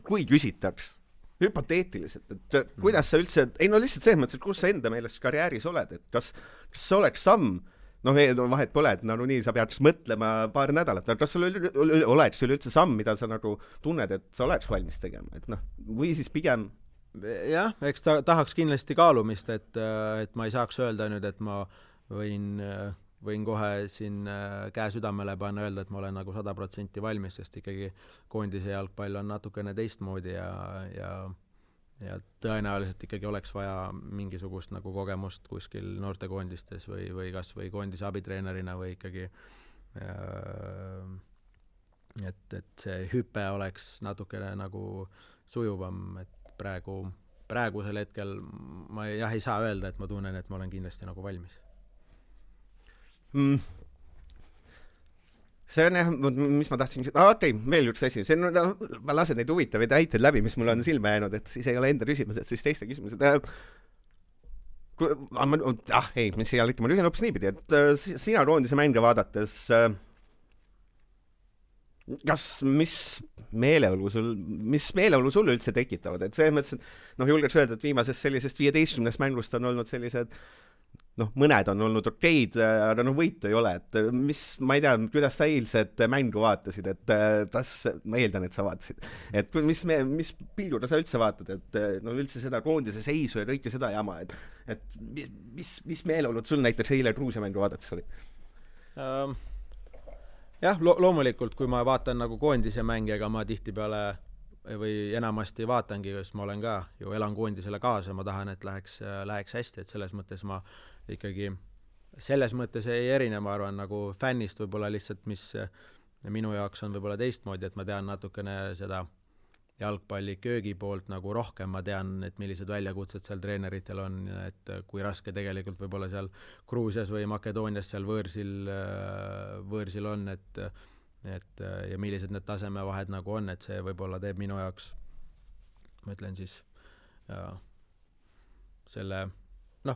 Kui küsitaks hüpoteetiliselt, et kuidas sa üldse, lihtsalt selles mõttes, et kus sa enda meelest karjääris oled, et kas see oleks samm noh, vahet pole, et no nii sa pead mõtlema paar nädalat, kas sul oleks üleüldse samm, mida sa nagu tunned, et sa oleks valmis tegema, et noh, või siis pigem jah, eks tahaks kindlasti kaalumist, et ma ei saaks öelda nüüd, et ma võin kohe siin käe südamele panna, öelda, et ma olen nagu 100% valmis, sest ikkagi koondise jalgpall on natukene teistmoodi ja tõenäoliselt ikkagi oleks vaja mingisugust nagu kogemust kuskil noortekoondistes või kas või koondise abitreenerina või ikkagi et see hüpe oleks natukene nagu sujuvam, et praegusel hetkel ma ei saa öelda, et ma tunnen, et ma olen kindlasti nagu valmis. See on jah, mis ma tahtsin, okei, veel üks asi, see on, ma lasen neid huvitavaid väiteid läbi, mis mul on silma jäänud, et siis ei ole enda küsimused, siis teiste küsimused. Mis ei ole, ma lühin hoopis niipidi, et sina koondise mänge vaadates, mis meeleolu sul üldse tekitavad, et see mõttes, et julgeks öelda, et viimasest sellisest 15 mängust on olnud sellised mõned on olnud okeid, aga võitu ei ole, et ma ei tea, kuidas sa eilset mängu vaatasid, et ma eeldan, et sa vaatasid, et mis pilguga sa üldse vaatad, et üldse seda koondise seisu ja kõike seda jama, et mis meeleolud sul näiteks eile Gruusia mängu vaadates oli? Jah, loomulikult, kui ma vaatan nagu koondise mänge, ega ma tihtipeale või enamasti vaatangi, sest ma olen ka ju elan koondisele kaasa, ma tahan, et läheks hästi, et selles mõttes ma ikkagi selles mõttes ei erine, ma arvan, nagu fännist võib-olla lihtsalt, mis minu jaoks on võib-olla teistmoodi, et ma tean natukene seda jalgpalli köögi poolt nagu rohkem, ma tean, et millised väljakutsed seal treeneritel on, et kui raske tegelikult võib-olla seal Gruusias või Makedoonias seal võõrsil on, et ja millised need tasemevahed nagu on, et see võib-olla teeb minu jaoks, ma ütlen siis,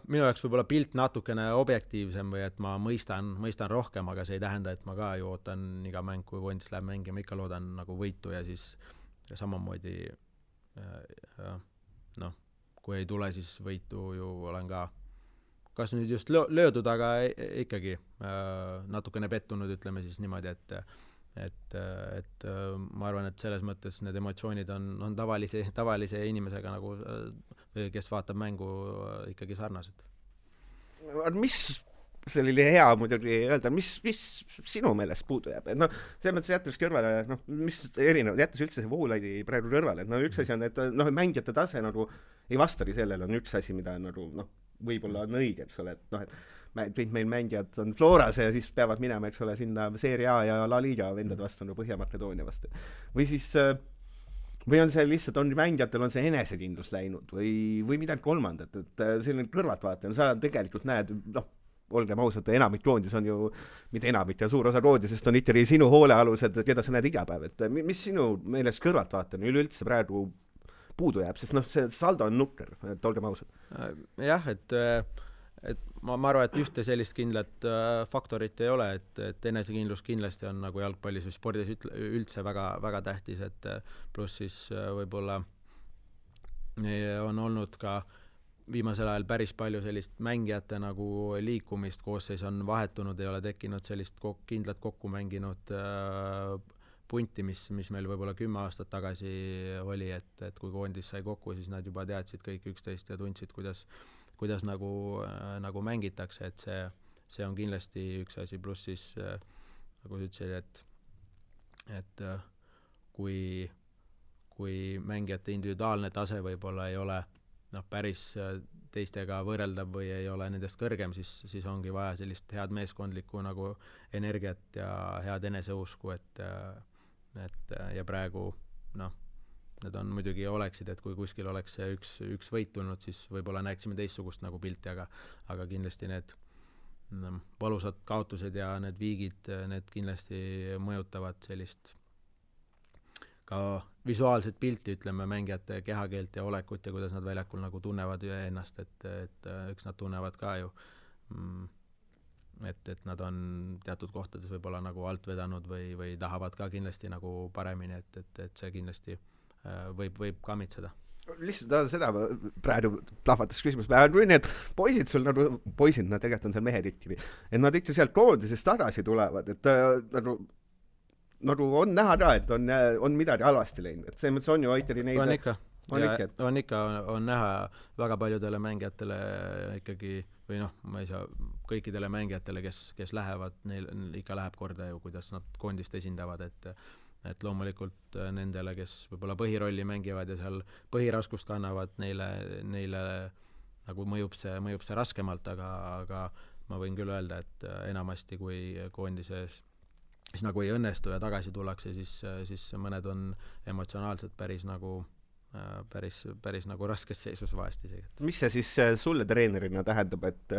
minu jaoks võib-olla pilt natukene objektiivsem või et ma mõistan rohkem, aga see ei tähenda, et ma ka ju ootan iga mäng, kui koondis läheb mängima, ikka loodan nagu võitu ja siis samamoodi kui ei tule, siis võitu ju olen ka kas nüüd just löödud, aga ikkagi natukene pettunud, ütleme siis niimoodi, et ma arvan, et selles mõttes need emotsioonid on tavalise inimesega nagu, kes vaatab mängu ikkagi sarnased. Mis selline hea muidugi öelda, mis sinu meelest puudu jääb? Selles mõttes jättes kõrvale, mis erinev, jättes üldse see Voolaidi praegu kõrvale, et üks asi on, et mängijate tase nagu ei vastagi sellele, on üks asi, mida nagu võib-olla on õige, eks ole, et kõik meil mängijad on Floras ja siis peavad minema, eks ole, sinna Serie A ja La Liga vendad vastu, Põhja-Makedoonia vastu. Või siis või on see lihtsalt, mängijatel on see enesekindlus läinud või midagi kolmandat, et selline kõrvaltvaatajana sa tegelikult näed, olgem ausad, enamik koondis on ju, mitte enamik ja suur osa koondisest on ikkagi sinu hoolealused, keda sa näed iga päev, et mis sinu meelest kõrvaltvaatajana üleüldse praegu puudu jääb, sest see saldo on nukker, et olgem ausad. Jah, et ma arvan, et ühte sellist kindlat faktorit ei ole, et enesekindlus kindlasti on nagu jalgpallis või spordis üldse väga, väga tähtis, et pluss siis võib-olla on olnud ka viimasel ajal päris palju sellist mängijate nagu liikumist, koosseis on vahetunud, ei ole tekkinud sellist kindlat kokku mänginud punti, mis meil võib-olla 10 aastat tagasi oli, et kui koondis sai kokku, siis nad juba teadsid kõik üksteist ja tundsid, kuidas nagu mängitakse, et see on kindlasti üks asi, pluss siis nagu sa ütlesid, et kui mängijate individuaalne tase võib-olla ei ole päris teistega võrreldav või ei ole nendest kõrgem, siis ongi vaja sellist head meeskondlikku nagu energiat ja head eneseusku, ja praegu need on muidugi oleksid, et kui kuskil oleks see üks võit tulnud, siis võib-olla näeksime teistsugust nagu pilti, aga kindlasti need valusad kaotused ja need viigid, need kindlasti mõjutavad sellist ka visuaalset pilti, ütleme, mängijate kehakeelt ja olekut ja kuidas nad väljakul nagu tunnevad ennast, et eks nad tunnevad ka ju, et nad on teatud kohtades võib-olla nagu alt vedanud või tahavad ka kindlasti nagu paremini, et see kindlasti võib kammitseda. lihtsalt seda praegu plahvatas küsimus. Kui need poisid sul nagu, poisid, nad tegelikult on seal mehed ikkagi, et nad ikka sealt koondisest tagasi tulevad, et nagu on näha ka, et on midagi halvasti läinud, et see mõttes on ju ikkagi neid... On näha väga paljudele mängijatele ikkagi, või noh, ma ei saa, kõikidele mängijatele, kes lähevad, neil ikka läheb korda ju, kuidas nad koondist esindavad, et loomulikult nendele, kes võib-olla põhirolli mängivad ja seal põhiraskust kannavad, neile nagu mõjub see raskemalt, aga ma võin küll öelda, et enamasti kui koondises siis nagu ei õnnestu ja tagasi tullakse, siis mõned on emotsionaalselt päris nagu raskes seisus vahest isegi. Mis see siis sulle treenerina tähendab, et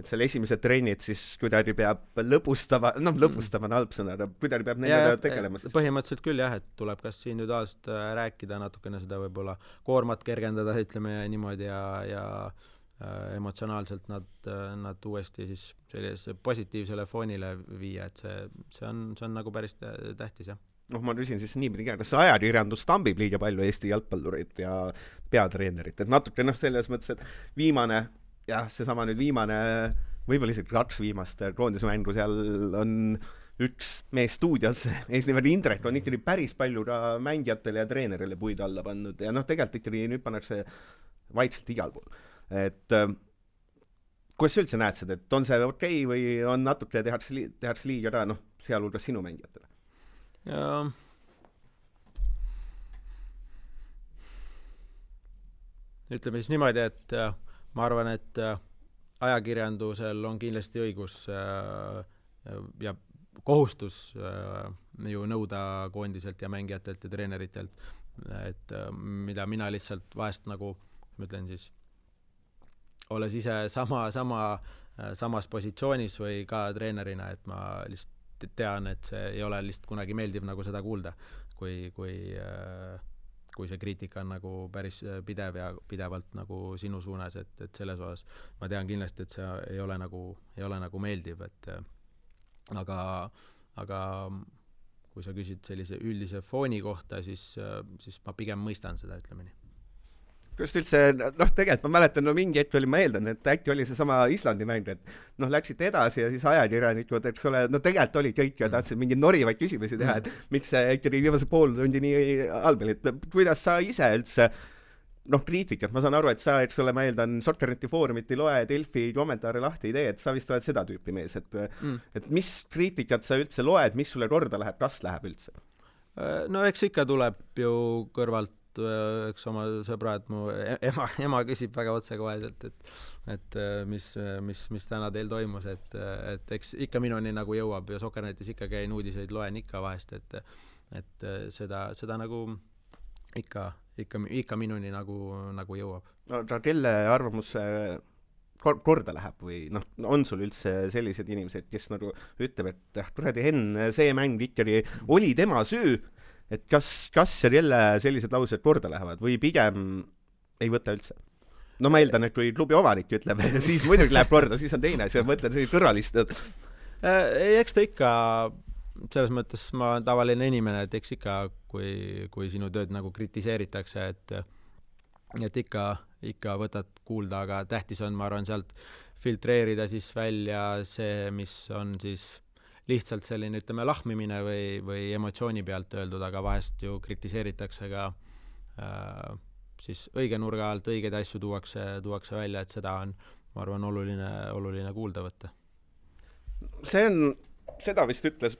selle esimesed trennid siis kuidagi peab lõbustama on halb sõna, kuidagi peab nendega tegelema? Põhimõtteliselt küll jah, et tuleb kas individuaalselt rääkida natukene seda võib-olla koormat kergendada, ütleme niimoodi ja emotsionaalselt nad uuesti siis sellise positiivsele foonile viia, et see on nagu päris tähtis jah. Ma küsin siis niipidi ka, kas ajakirjandus tambib liiga palju Eesti jalgpallurit ja peatreenerit, et natuke selles mõttes, et viimane, võib-olla isegi 2 viimast koondismängu seal on üks mees stuudios, eesnimelt Indrek on ikkagi päris palju ka mängijatele ja treenerile puid alla pannud ja tegelikult ikkagi nüüd pannakse vaikselt igal pool. Et kuidas sa üldse näed seda, et on see okei või on natuke tehakse liiga ka, sealhulgas sinu mängijatele? Ja ütleme siis niimoodi, et ma arvan, et ajakirjandusel on kindlasti õigus ja kohustus ju nõuda koondiselt ja mängijatelt ja treeneritelt, et mida mina lihtsalt vahest nagu, ma ütlen siis, olles ise samas positsioonis või ka treenerina, et ma lihtsalt tean, et see ei ole lihtsalt kunagi meeldiv nagu seda kuulda, kui see kriitika on nagu päris pidev ja pidevalt nagu sinu suunas, et selles osas ma tean kindlasti, et see ei ole nagu meeldiv, et aga kui sa küsid sellise üldise fooni kohta, siis ma pigem mõistan seda, ütleme nii. Just üldse, tegelikult ma mäletan, mingi hetk ma eeldan, et äkki oli see sama Islandi mäng, et läksite edasi ja siis ajakirjanikud, eks ole, tegelikult oli kõik ja tahtsid mingi norivaid küsimusi teha, et miks see ikkagi viimase pool tundi nii halb oli, et kuidas sa ise üldse, kriitikat, ma saan aru, et sa, eks ole, ma eeldan, Soccerneti foorumit ei loe, Delfi kommentaare lahti ei tee, et sa vist oled seda tüüpi mees, et mis kriitikat sa üldse loed, mis sulle korda läheb, kas läheb üldse? No eks ikka tuleb ju kõrvalt üks oma sõbrad, mu ema küsib väga otsekoheselt, et mis täna teil toimus, et eks ikka minuni nagu jõuab ja Soccernetis ikka käin uudiseid, loen ikka vahest, et seda nagu ikka minuni nagu jõuab. Aga kelle arvamus korda läheb või on sul üldse sellised inimesed, kes nagu ütleb, et kuradi Henn, see mäng ikkagi oli tema süü, et kas ja kelle sellised laused korda lähevad või pigem ei võta üldse? Ma eeldan, et kui klubi omanik ütleb, siis muidugi läheb korda, siis on teine, see mõtled see kõrvalist. Eks ta ikka, selles mõttes ma olen tavaline inimene, et eks ikka, kui sinu tööd nagu kritiseeritakse, et ikka võtad kuulda, aga tähtis on, ma arvan, sealt filtreerida siis välja see, mis on siis lihtsalt selline, ütleme, lahmimine või emotsiooni pealt öeldud, aga vahest ju kritiseeritakse ka siis õige nurga alt, õigeid asju tuuakse välja, et seda on, ma arvan, oluline kuulda võtta. Seda vist ütles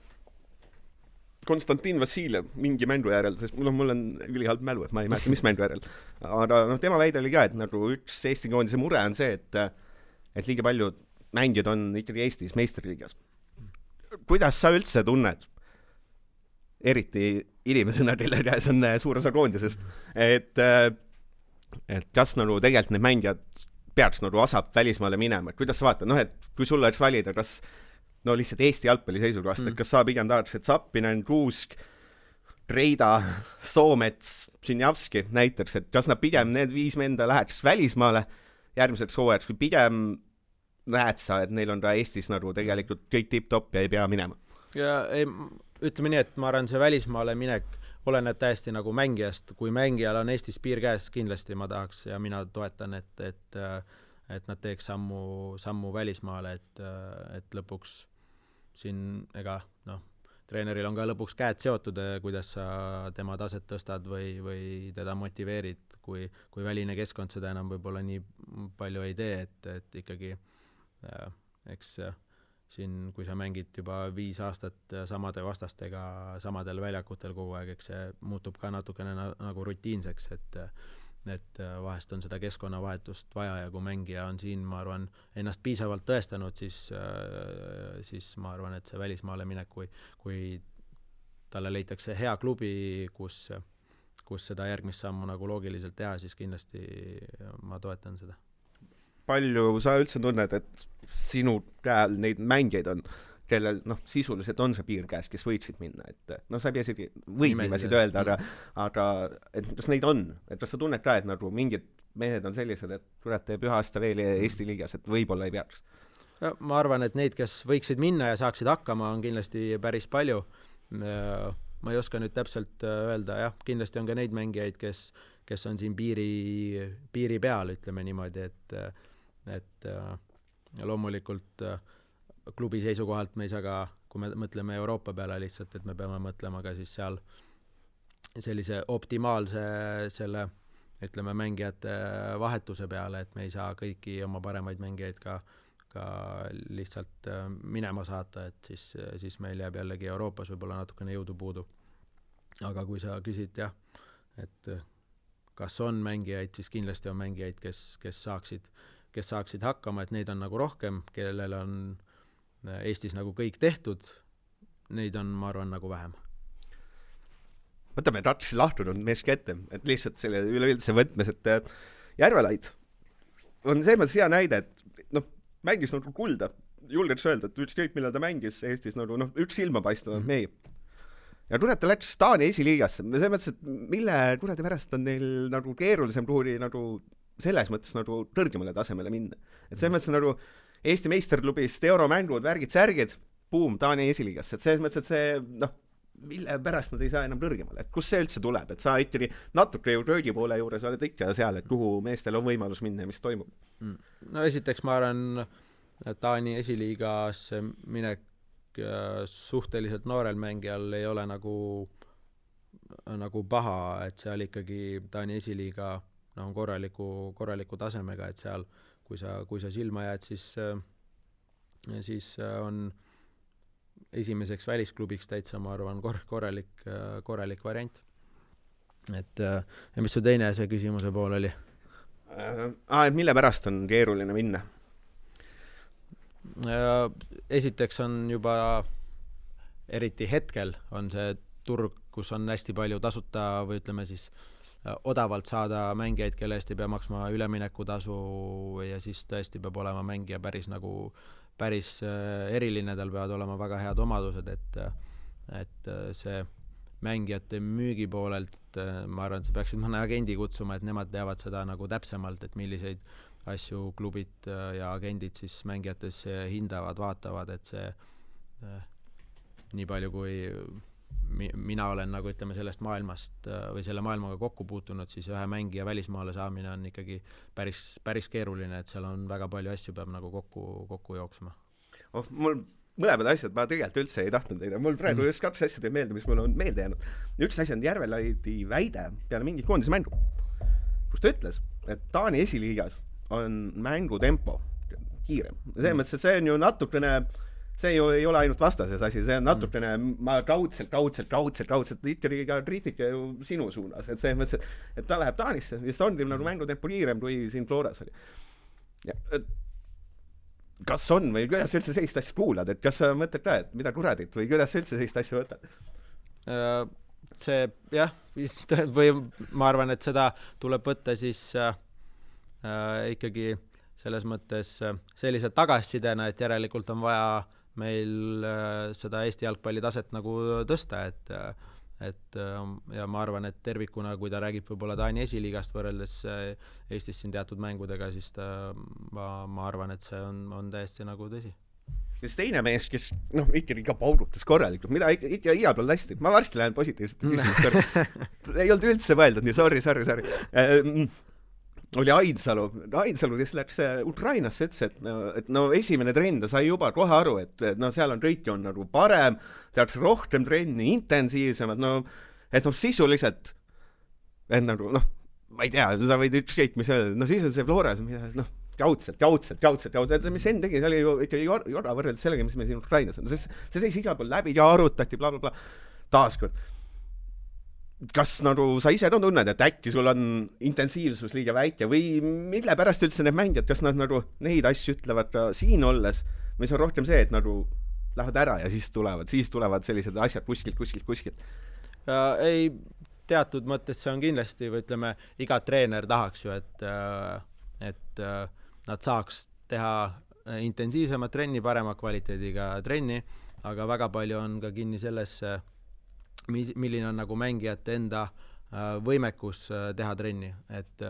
Konstantin Vassiljev mingi mängu järel, sest mul on ülihalb mälu, et ma ei mäleta, mis mängu järel. Aga tema väide oli ka, et nagu üks Eesti koondise mure on see, et liiga palju mängijad on ikkagi Eestis meistriliigas. Kuidas sa üldse tunned, eriti inimesena, kelle käes on suur osa koondisest, et kas nagu tegelikult need mängijad peaks nagu asap välismaale minema, et kuidas sa vaatad, et kui sulle oleks valida, kas lihtsalt Eesti jalgpalli seisukohast, et kas sa pigem tahaks, et Zappinen, Kuusk, Reida, Soomets, Sinjavski näiteks, et kas nad pigem need 5 menda läheks välismaale järgmiseks hooajaks või pigem näed sa, et neil on ka Eestis nagu tegelikult kõik tipp-top ja ei pea minema? Ja ütleme nii, et ma arvan, see välismaale minek oleneb täiesti nagu mängijast, kui mängijal on Eestis piir käes, kindlasti ma tahaks ja mina toetan, et nad teeks sammu välismaale, et lõpuks siin treeneril on ka lõpuks käed seotud, kuidas sa tema taset tõstad või teda motiveerid, kui väline keskkond seda enam võib-olla nii palju ei tee, et ikkagi eks siin, kui sa mängid juba 5 aastat samade vastastega samadel väljakutel kogu aeg, eks see muutub ka natukene nagu rutiinseks, et vahest on seda keskkonnavahetust vaja ja kui mängija on siin, ma arvan, ennast piisavalt tõestanud, siis ma arvan, et see välismaale minek, kui talle leitakse hea klubi, kus seda järgmist sammu nagu loogiliselt teha, siis kindlasti ma toetan seda. Palju sa üldse tunned, et sinu käel neid mängijaid on, kellel sisuliselt on see piir käes, kes võiksid minna, et sa ei pea isegi nimesid öelda, aga et kas neid on, et kas sa tunned ka, et nagu mingid mehed on sellised, et kurat teeb 1 aasta veel Eesti liigas, et võib-olla ei peaks? Ma arvan, et neid, kes võiksid minna ja saaksid hakkama, on kindlasti päris palju. Ma ei oska nüüd täpselt öelda, jah, kindlasti on ka neid mängijaid, kes on siin piiri peal, ütleme niimoodi, et loomulikult klubi seisukohalt me ei saa ka, kui me mõtleme Euroopa peale lihtsalt, et me peame mõtlema ka siis seal sellise optimaalse selle, ütleme, mängijate vahetuse peale, et me ei saa kõiki oma paremaid mängijaid ka lihtsalt minema saata, et siis meil jääb jällegi Euroopas võib-olla natukene jõudu puudu. Aga kui sa küsid, jah, et kas on mängijaid, siis kindlasti on mängijaid, kes saaksid hakkama, et neid on nagu rohkem, kellel on Eestis nagu kõik tehtud, neid on, ma arvan, nagu vähem. Võtame Ratsi lahtunud meeski ette, et lihtsalt selle üleüldse võtmes, et Järvelaid on see mõttes hea näide, et mängis nagu kulda, julgeks öelda, et ükskõik millal ta mängis Eestis nagu üks silmapaistunud mehi. Ja kurat ta läks Taani esiliigasse, see mõttes, et mille kuradi pärast on neil nagu keerulisem kuhuri nagu selles mõttes nagu kõrgemale tasemele minna. Et see mõttes nagu Eesti meisterklubist euromängud, värgid, särgid, buum, Taani esiliigasse, et selles mõttes, et see mille pärast nad ei saa enam kõrgemale, et kus see üldse tuleb, et sa ikkagi natuke ju röögi poole juures oled ikka seal, et kuhu meestel on võimalus minna ja mis toimub. No esiteks ma arvan, Taani esiliigasse minek suhteliselt noorel mängijal ei ole nagu paha, et seal ikkagi Taani esiliiga on korraliku tasemega, et seal kui sa silma jääd, siis on esimeseks välisklubiks täitsa, ma arvan, korralik variant. Et ja mis su teine see küsimuse pool oli? Et mille pärast on keeruline minna? Esiteks on juba eriti hetkel on see turg, kus on hästi palju tasuta või ütleme siis odavalt saada mängijaid, kelle eest ei pea maksma üleminekutasu ja siis tõesti peab olema mängija päris eriline, tal peavad olema väga head omadused, et see mängijate müügi poolelt, ma arvan, et sa peaksid mõne agendi kutsuma, et nemad teavad seda nagu täpsemalt, et milliseid asju klubid ja agendid siis mängijates hindavad, vaatavad, et see nii palju kui mina olen nagu ütleme sellest maailmast või selle maailmaga kokku puutunud, siis ühe mängija välismaale saamine on ikkagi päris keeruline, et seal on väga palju asju peab nagu kokku jooksma. Mul mõlemad asjad, ma tegelikult üldse ei tahtnud teida. Mul praegu just 2 asja teeb meelde, mis mul on meelde jäänud. Üks asi on Järvelaidi väide peale mingit koondise mängu, kus ta ütles, et Taani esiliigas on mängutempo kiirem. See mõttes, et see on ju natukene see ju ei ole ainult vastases asi, see on natukene ma kaudselt ikkagi ka kriitika ju sinu suunas, et see mõttes, et ta läheb Taanisse, vist on nagu mängutempo kiirem kui siin Floras oli. Ja, kas on või kuidas üldse sellist asja kuulad, et kas sa mõtled ka, et mida kuradit või kuidas üldse sellist asja võtad? See jah, või ma arvan, et seda tuleb võtta siis ikkagi selles mõttes sellised tagasisidena, et järelikult on vaja meil seda Eesti jalgpalli taset nagu tõsta, et ja ma arvan, et tervikuna, kui ta räägib võib-olla Taani esiliigast võrreldes Eestis siin teatud mängudega, siis ma arvan, et see on täiesti nagu tõsi. ja siis teine mees, kes ikka paugutas korralikult, mida ikka igal pool hästi. Ma varsti lähen positiivselt küsimust. Ei olnud üldse mõeldud, nii sorry. Oli Ainsalu, kes läks Ukrainasse, ütles, et esimene trenn ta sai juba kohe aru, et seal on kõik on nagu parem, tehakse rohkem trenni, intensiivsemad, et sisuliselt, et nagu, ma ei tea, sa võid ükskõik, mis öelda, sisuliselt see Floras, jaudselt, mis Enn tegi, see oli ju ikka jorda võrreldes sellega, mis me siin Ukrainas on, see teisi igal pool läbi ja arutati, blablabla, taaskord. Kas sa ise tunned, et äkki sul on intensiivsus liiga väike või mille pärast üldse need mängijad, kas nad neid asju ütlevad ka siin olles, või see on rohkem see, et lähevad ära ja siis tulevad sellised asjad kuskilt. Ei, teatud mõttes see on kindlasti, või ütleme, iga treener tahaks ju, et nad saaks teha intensiivsemat trenni, parema kvaliteediga trenni, aga väga palju on ka kinni sellesse, milline on nagu mängijate enda võimekus teha trenni, et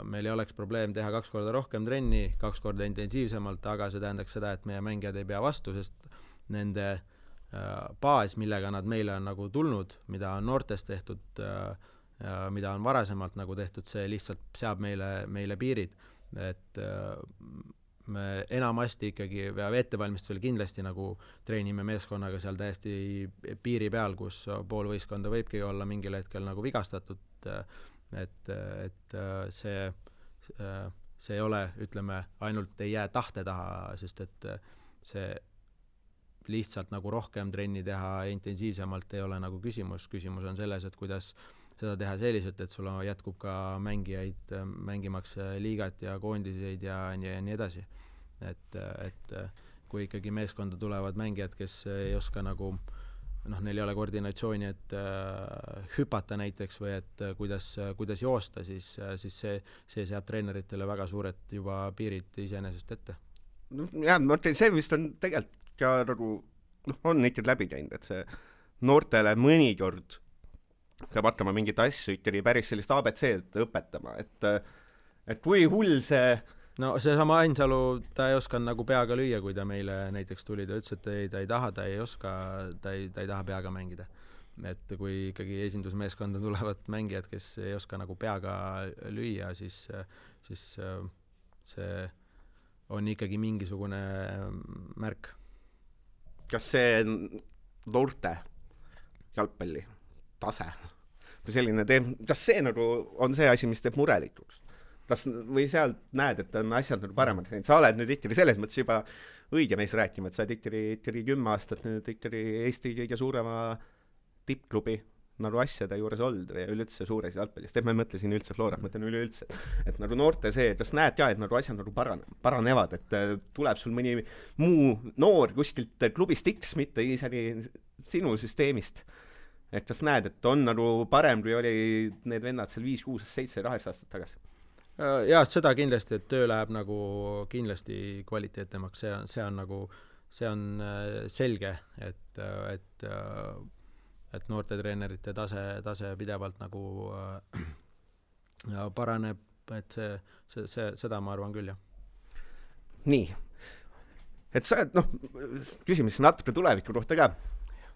meil ei oleks probleem teha 2 korda rohkem trenni, 2 korda intensiivsemalt, aga see tähendaks seda, et meie mängijad ei pea vastu, sest nende baas, millega nad meile on nagu tulnud, mida on noortest tehtud, mida on varasemalt nagu tehtud, see lihtsalt seab meile piirid, et me enamasti ikkagi ettevalmistusel kindlasti nagu treenime meeskonnaga seal täiesti piiri peal, kus pool võistkonda võibki olla mingil hetkel nagu vigastatud, et see ei ole, ütleme, ainult ei jää tahte taha, sest et see lihtsalt nagu rohkem trenni teha intensiivsemalt ei ole nagu küsimus on selles, et kuidas seda teha selliselt, et sul jätkub ka mängijaid mängimaks liigat ja koondiseid ja nii edasi. Et kui ikkagi meeskonda tulevad mängijad, kes ei oska nagu, neil ei ole koordinatsiooni, et hüpata näiteks või et kuidas joosta, siis see seab treeneritele väga suured juba piirid iseenesest ette. See vist on tegelikult ka nagu, on ikka läbi käinud, et see noortele mõnikord peab hakkama mingit asju ikkagi päris sellist ABC-d õpetama, et kui hull see seesama Ainsalu, ta ei oska nagu peaga lüüa, kui ta meile näiteks tuli, ta ütles, et ta ei taha, ta ei oska, ta ei taha peaga mängida. Et kui ikkagi esindusmeeskonda tulevad mängijad, kes ei oska nagu peaga lüüa, siis see on ikkagi mingisugune märk. Kas see noorte jalgpalli tase või selline kas see nagu on see asi, mis teeb murelikuks? Või seal näed, et on asjad nagu paremad? Sa oled nüüd ikkagi selles mõttes juba õige mees rääkima, et sa oled ikkagi 10 aastat nüüd ikkagi Eesti kõige suurema tippklubi nagu asjade juures olnud või üleüldse suures jalgpallist. Et ma ei mõtle siin üldse Flora, mõtlen üleüldse. Et nagu noorte see, kas näed ka, et nagu asjad nagu paranevad, et tuleb sul mõni muu noor kuskilt klubist X, mitte isegi sinu süsteemist. Et kas näed, et on nagu parem, kui oli need vennad seal 5, 6, 7, 8 aastat tagasi? Jaa, seda kindlasti, et töö läheb nagu kindlasti kvaliteetnemaks, see on selge, et noortetreenerite tase pidevalt nagu paraneb, et seda ma arvan küll, jah. Nii, et sa küsimus natuke tuleviku kohta ka,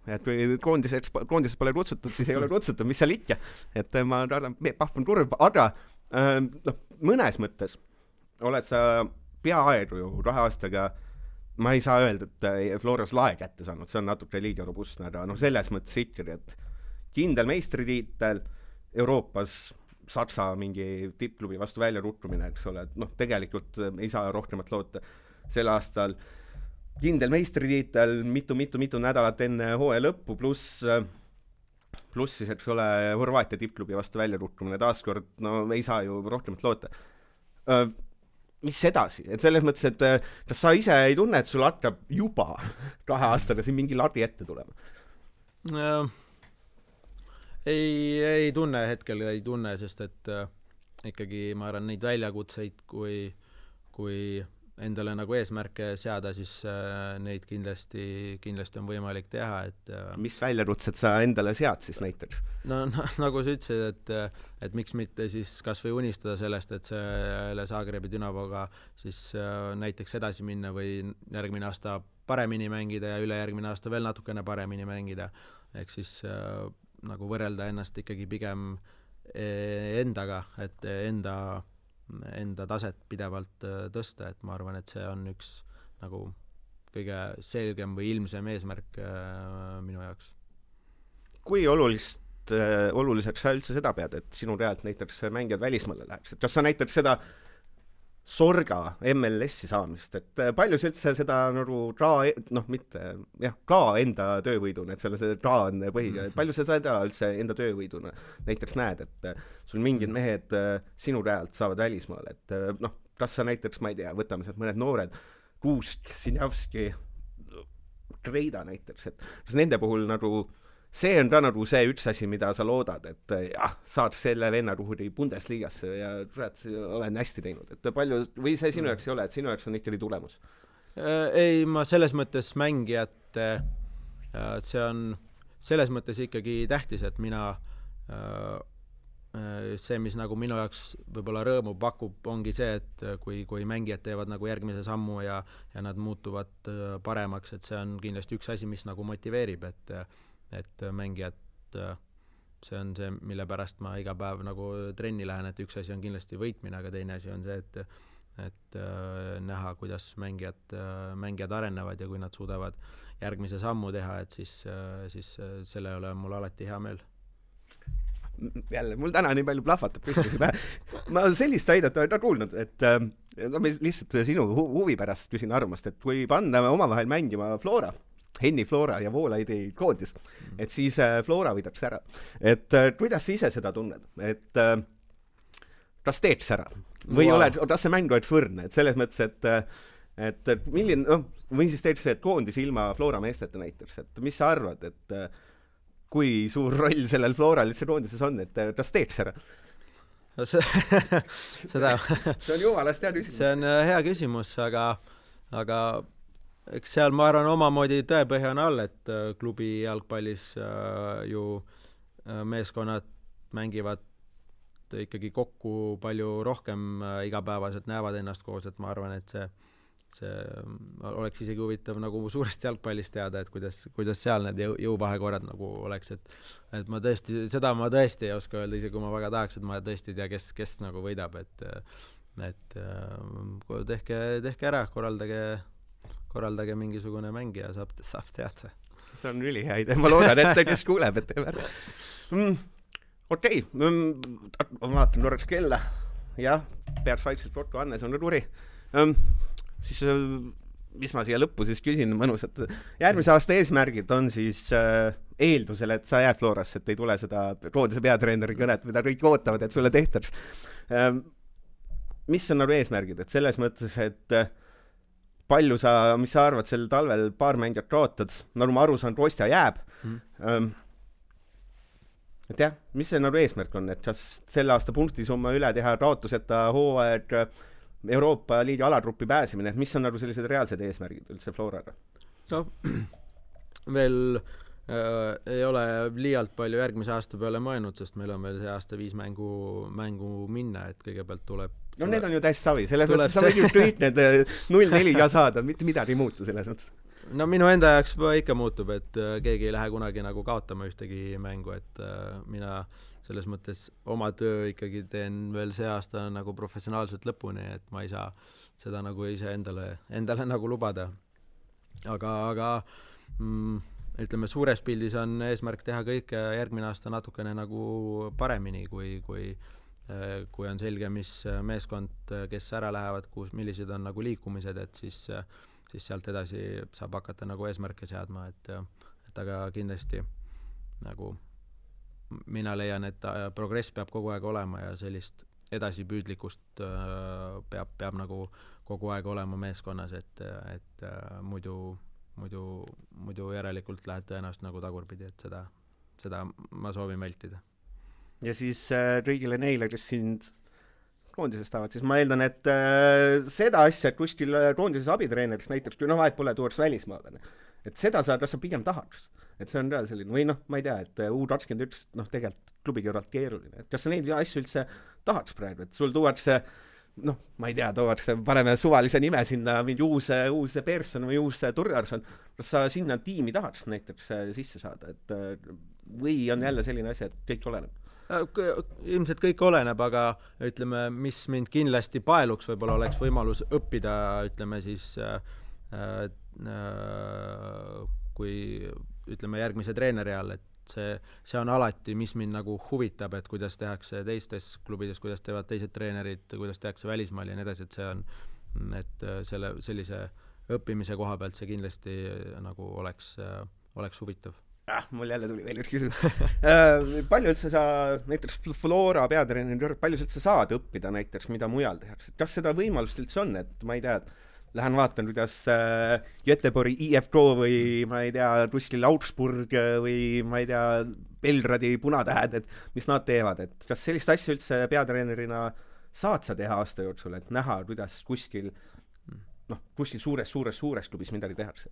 et kui koondises pole kutsutud, siis ei ole kutsutud, mis seal ikka, et ma arvan, pahvan kurb, aga mõnes mõttes oled sa peaaegu ju 2 aastaga, ma ei saa öelda, et Floras lae kätte saanud, see on natuke liiga robustne, aga selles mõttes ikkagi, et kindel meistritiitel Euroopas Saksa mingi tippklubi vastu välja ruttumine, eks ole, et tegelikult ei saa rohkemat loota sel aastal. Kindel meistritiitel mitu nädalat enne hooaja lõppu, pluss siis, eks ole, Horvaatia tippklubi vastu välja ruttumine taaskord, ei saa ju rohkemat loota. Mis edasi? Et selles mõttes, et kas sa ise ei tunne, et sul hakkab juba 2 aastaga siin mingi lagi ette tulema? Ei tunne, hetkel ei tunne, sest et ikkagi ma arvan neid väljakutseid, kui endale nagu eesmärke seada, siis neid kindlasti on võimalik teha, et mis väljakutsed sa endale sead siis näiteks? Nagu sa ütlesid, et miks mitte siis kas või unistada sellest, et selle Zagrebi Dynavoga siis näiteks edasi minna või järgmine aasta paremini mängida ja ülejärgmine aasta veel natukene paremini mängida, ehk siis nagu võrrelda ennast ikkagi pigem endaga, et enda taset pidevalt tõsta, et ma arvan, et see on üks nagu kõige selgem või ilmsem eesmärk minu jaoks. Kui oluliseks sa üldse seda pead, et sinu realt näiteks mängijad välismaale läheks? Kas sa näiteks seda Sorga MLS-i saamist, et palju sa üldse seda nagu ka enda töövõiduna, et selle see on põhiga, et palju sa seda üldse enda töövõiduna näiteks näed, et sul mingid mehed sinu realt saavad välismaale, et kas sa näiteks, ma ei tea, võtame sealt mõned noored, Kuusk, Sinjavski, Kreida näiteks, et kas nende puhul nagu see on ka nagu see üks asi, mida sa loodad, et saad selle vennaruhuri Bundesligasse ja olen hästi teinud, et palju, või see sinu jaoks ei ole, et sinu jaoks on ikkagi tulemus? Ei, ma selles mõttes mängijat, see on selles mõttes ikkagi tähtis, et mina see, mis nagu minu jaoks võib-olla rõõmu pakub, ongi see, et kui mängijad teevad nagu järgmise sammu ja nad muutuvad paremaks, et see on kindlasti üks asi, mis nagu motiveerib, et mängijad, see on see, mille pärast ma iga päev nagu trenni lähen, et üks asi on kindlasti võitmine, aga teine asi on see, et näha, kuidas mängijad arenevad ja kui nad suudavad järgmise sammu teha, et siis selle üle on mul alati hea meel. Jälle, mul täna nii palju plahvatab küsimusi pähe. Ma sellist väidet olen kuulnud, et ma lihtsalt sinu huvi pärast küsin arvamust, et kui panna omavahel mängima Henni Flora ja Voolaidi koondis, et siis Flora võidaks ära. Et kuidas sa ise seda tunned? Et kas teeks ära? Või kas see mäng oleks võrdne? Et selles mõttes, et milline, või siis teeks see, et koondis ilma Flora meesteta näiteks, et mis sa arvad, et kui suur roll sellel Floral üldse koondises on, et kas teeks ära? Seda see on jumalast hea küsimus. See on hea küsimus, aga eks seal ma arvan omamoodi tõepõhja on all, et klubi jalgpallis ju meeskonnad mängivad ikkagi kokku palju rohkem igapäevaselt, näevad ennast koos, et ma arvan, et see oleks isegi huvitav nagu suurest jalgpallist teada, et kuidas seal need jõuvahekorrad nagu oleks, et ma tõesti ei oska öelda, isegi kui ma väga tahaks, et ma tõesti ei tea, kes nagu võidab, et tehke ära, korraldage mingisugune mäng ja saab teada. See on ülihea idee, ma loodan, et kes kuuleb, et teeb ära. Okei, ma vaatan korraks kella. Jah, peaks vaikselt kokku, Annes on ruri. Siis, mis ma siia lõppu siis küsin mõnusat. Järgmise aasta eesmärgid on siis eeldusel, et sa jääd Florasse, et ei tule seda koondise peatreeneri kõnet, mida kõik ootavad, et sulle tehtaks. Mis on nagu eesmärgid? Et selles mõttes, et mis sa arvad, sel talvel paar mängijat kaotad, nagu ma aru saan, Kostja jääb. Et jah, mis see nagu eesmärk on, et kas selle aasta punktisumma üle teha kaotuseta hooaeg Euroopa Liiga alagruppi pääsemine, et mis on nagu sellised reaalsed eesmärgid üldse Floraga? No, veel ei ole liialt palju järgmise aasta peale mõelnud, sest meil on veel see aasta 5 mängu minna, et kõigepealt tuleb no need on ju täis savi, selles mõttes sa võid ju kõik need 0-4 ka saada, mitte midagi ei muutu selles mõttes. No minu enda jaoks ikka muutub, et keegi ei lähe kunagi nagu kaotama ühtegi mängu, et mina selles mõttes oma töö ikkagi teen veel see aasta nagu professionaalselt lõpuni, et ma ei saa seda nagu ise endale nagu lubada. Aga ütleme, suures pildis on eesmärk teha kõike järgmine aasta natukene nagu paremini, kui on selge, mis meeskond, kes ära lähevad, millised on nagu liikumised, et siis sealt edasi saab hakata nagu eesmärke seadma, et aga kindlasti nagu mina leian, et progress peab kogu aeg olema ja sellist edasipüüdlikkust peab nagu kogu aeg olema meeskonnas, et muidu järelikult lähed tõenäoliselt nagu tagurpidi, et seda ma soovin vältida. Ja siis kõigile neile, kes sind koondisest tahavad, siis ma eeldan, et seda asja, et kuskil koondises abitreeneriks näiteks, kui vahet pole, tuuaks välismaalane. Et seda kas sa pigem tahaks. Et see on ka selline, või ma ei tea, et U21 tegelikult klubi kõrvalt keeruline. Et kas sa neid asju üldse tahaks praegu, et sul tuuakse noh, ma ei tea, tookord paneme suvalise nime sinna, mingi uus Persson või uus Turdarson, kas sa sinna tiimi tahaks näiteks sisse saada, et või on jälle selline asi, et kõik oleneb? Ilmselt kõik oleneb, aga ütleme, mis mind kindlasti paeluks, võib-olla oleks võimalus õppida, ütleme siis kui ütleme järgmise treeneri all, et see on alati, mis mind nagu huvitab, et kuidas tehakse teistes klubides, kuidas teevad teised treenerid, kuidas tehakse välismaal ja nii edasi, et see on, et sellise õppimise koha pealt see kindlasti nagu oleks huvitav. Mul jälle tuli veel üks küsimus. Palju üldse sa, näiteks Flora peatreener, palju üldse saad õppida näiteks, mida mujal tehakse? Kas seda võimalust üldse on, et ma ei tea, lähen vaatan, kuidas Göteborgi IFK või ma ei tea, kuskil Augsburg või ma ei tea, Belgradi Punatähed, et mis nad teevad, et kas sellist asja üldse peatreenerina saad sa teha aasta jooksul, et näha, kuidas kuskil suures klubis midagi tehakse?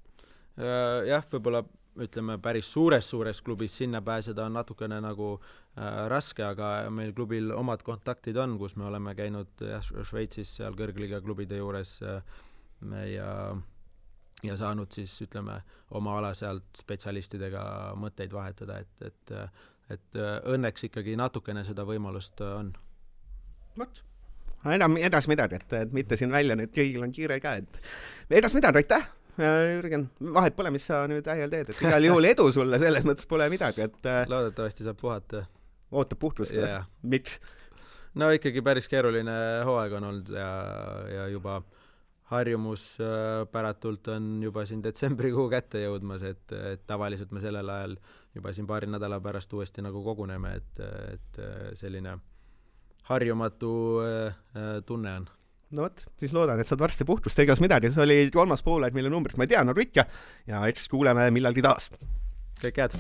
Jah, võib-olla ütleme päris suures klubis sinna pääseda on natukene nagu raske, aga meil klubil omad kontaktid on, kus me oleme käinud Šveitsis seal kõrgliga klubide juures ja saanud siis ütleme oma ala sealt spetsialistidega mõtteid vahetada, et õnneks ikkagi natukene seda võimalust on. Vot, enam edas midagi, et mitte siin välja nüüd kõigil on kiire ka, et edas midagi, aitäh! Jürgen, vahet pole, mis sa nüüd ähjal teed, et igal juhul edu sulle, selles mõttes pole midagi, et loodetavasti saab puhata. Ootab puhtust, miks? No ikkagi päris keeruline hooaeg on olnud ja juba harjumus päratult on juba siin detsembrikuu kätte jõudmas, et tavaliselt me sellel ajal juba siin paari nädala pärast uuesti nagu koguneme, et selline harjumatu tunne on. No võt, siis loodan, et saad varsti puhtust, egas midagi. See oli 3. poolaeg, mille numbrit ma ei tea, nagu ikka, ja eks kuuleme millalgi taas. Kõik head!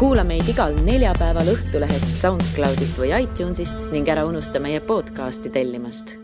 Kuula meid igal neljapäeval Õhtulehest, SoundCloudist või iTunesist ning ära unusta meie podcasti tellimast.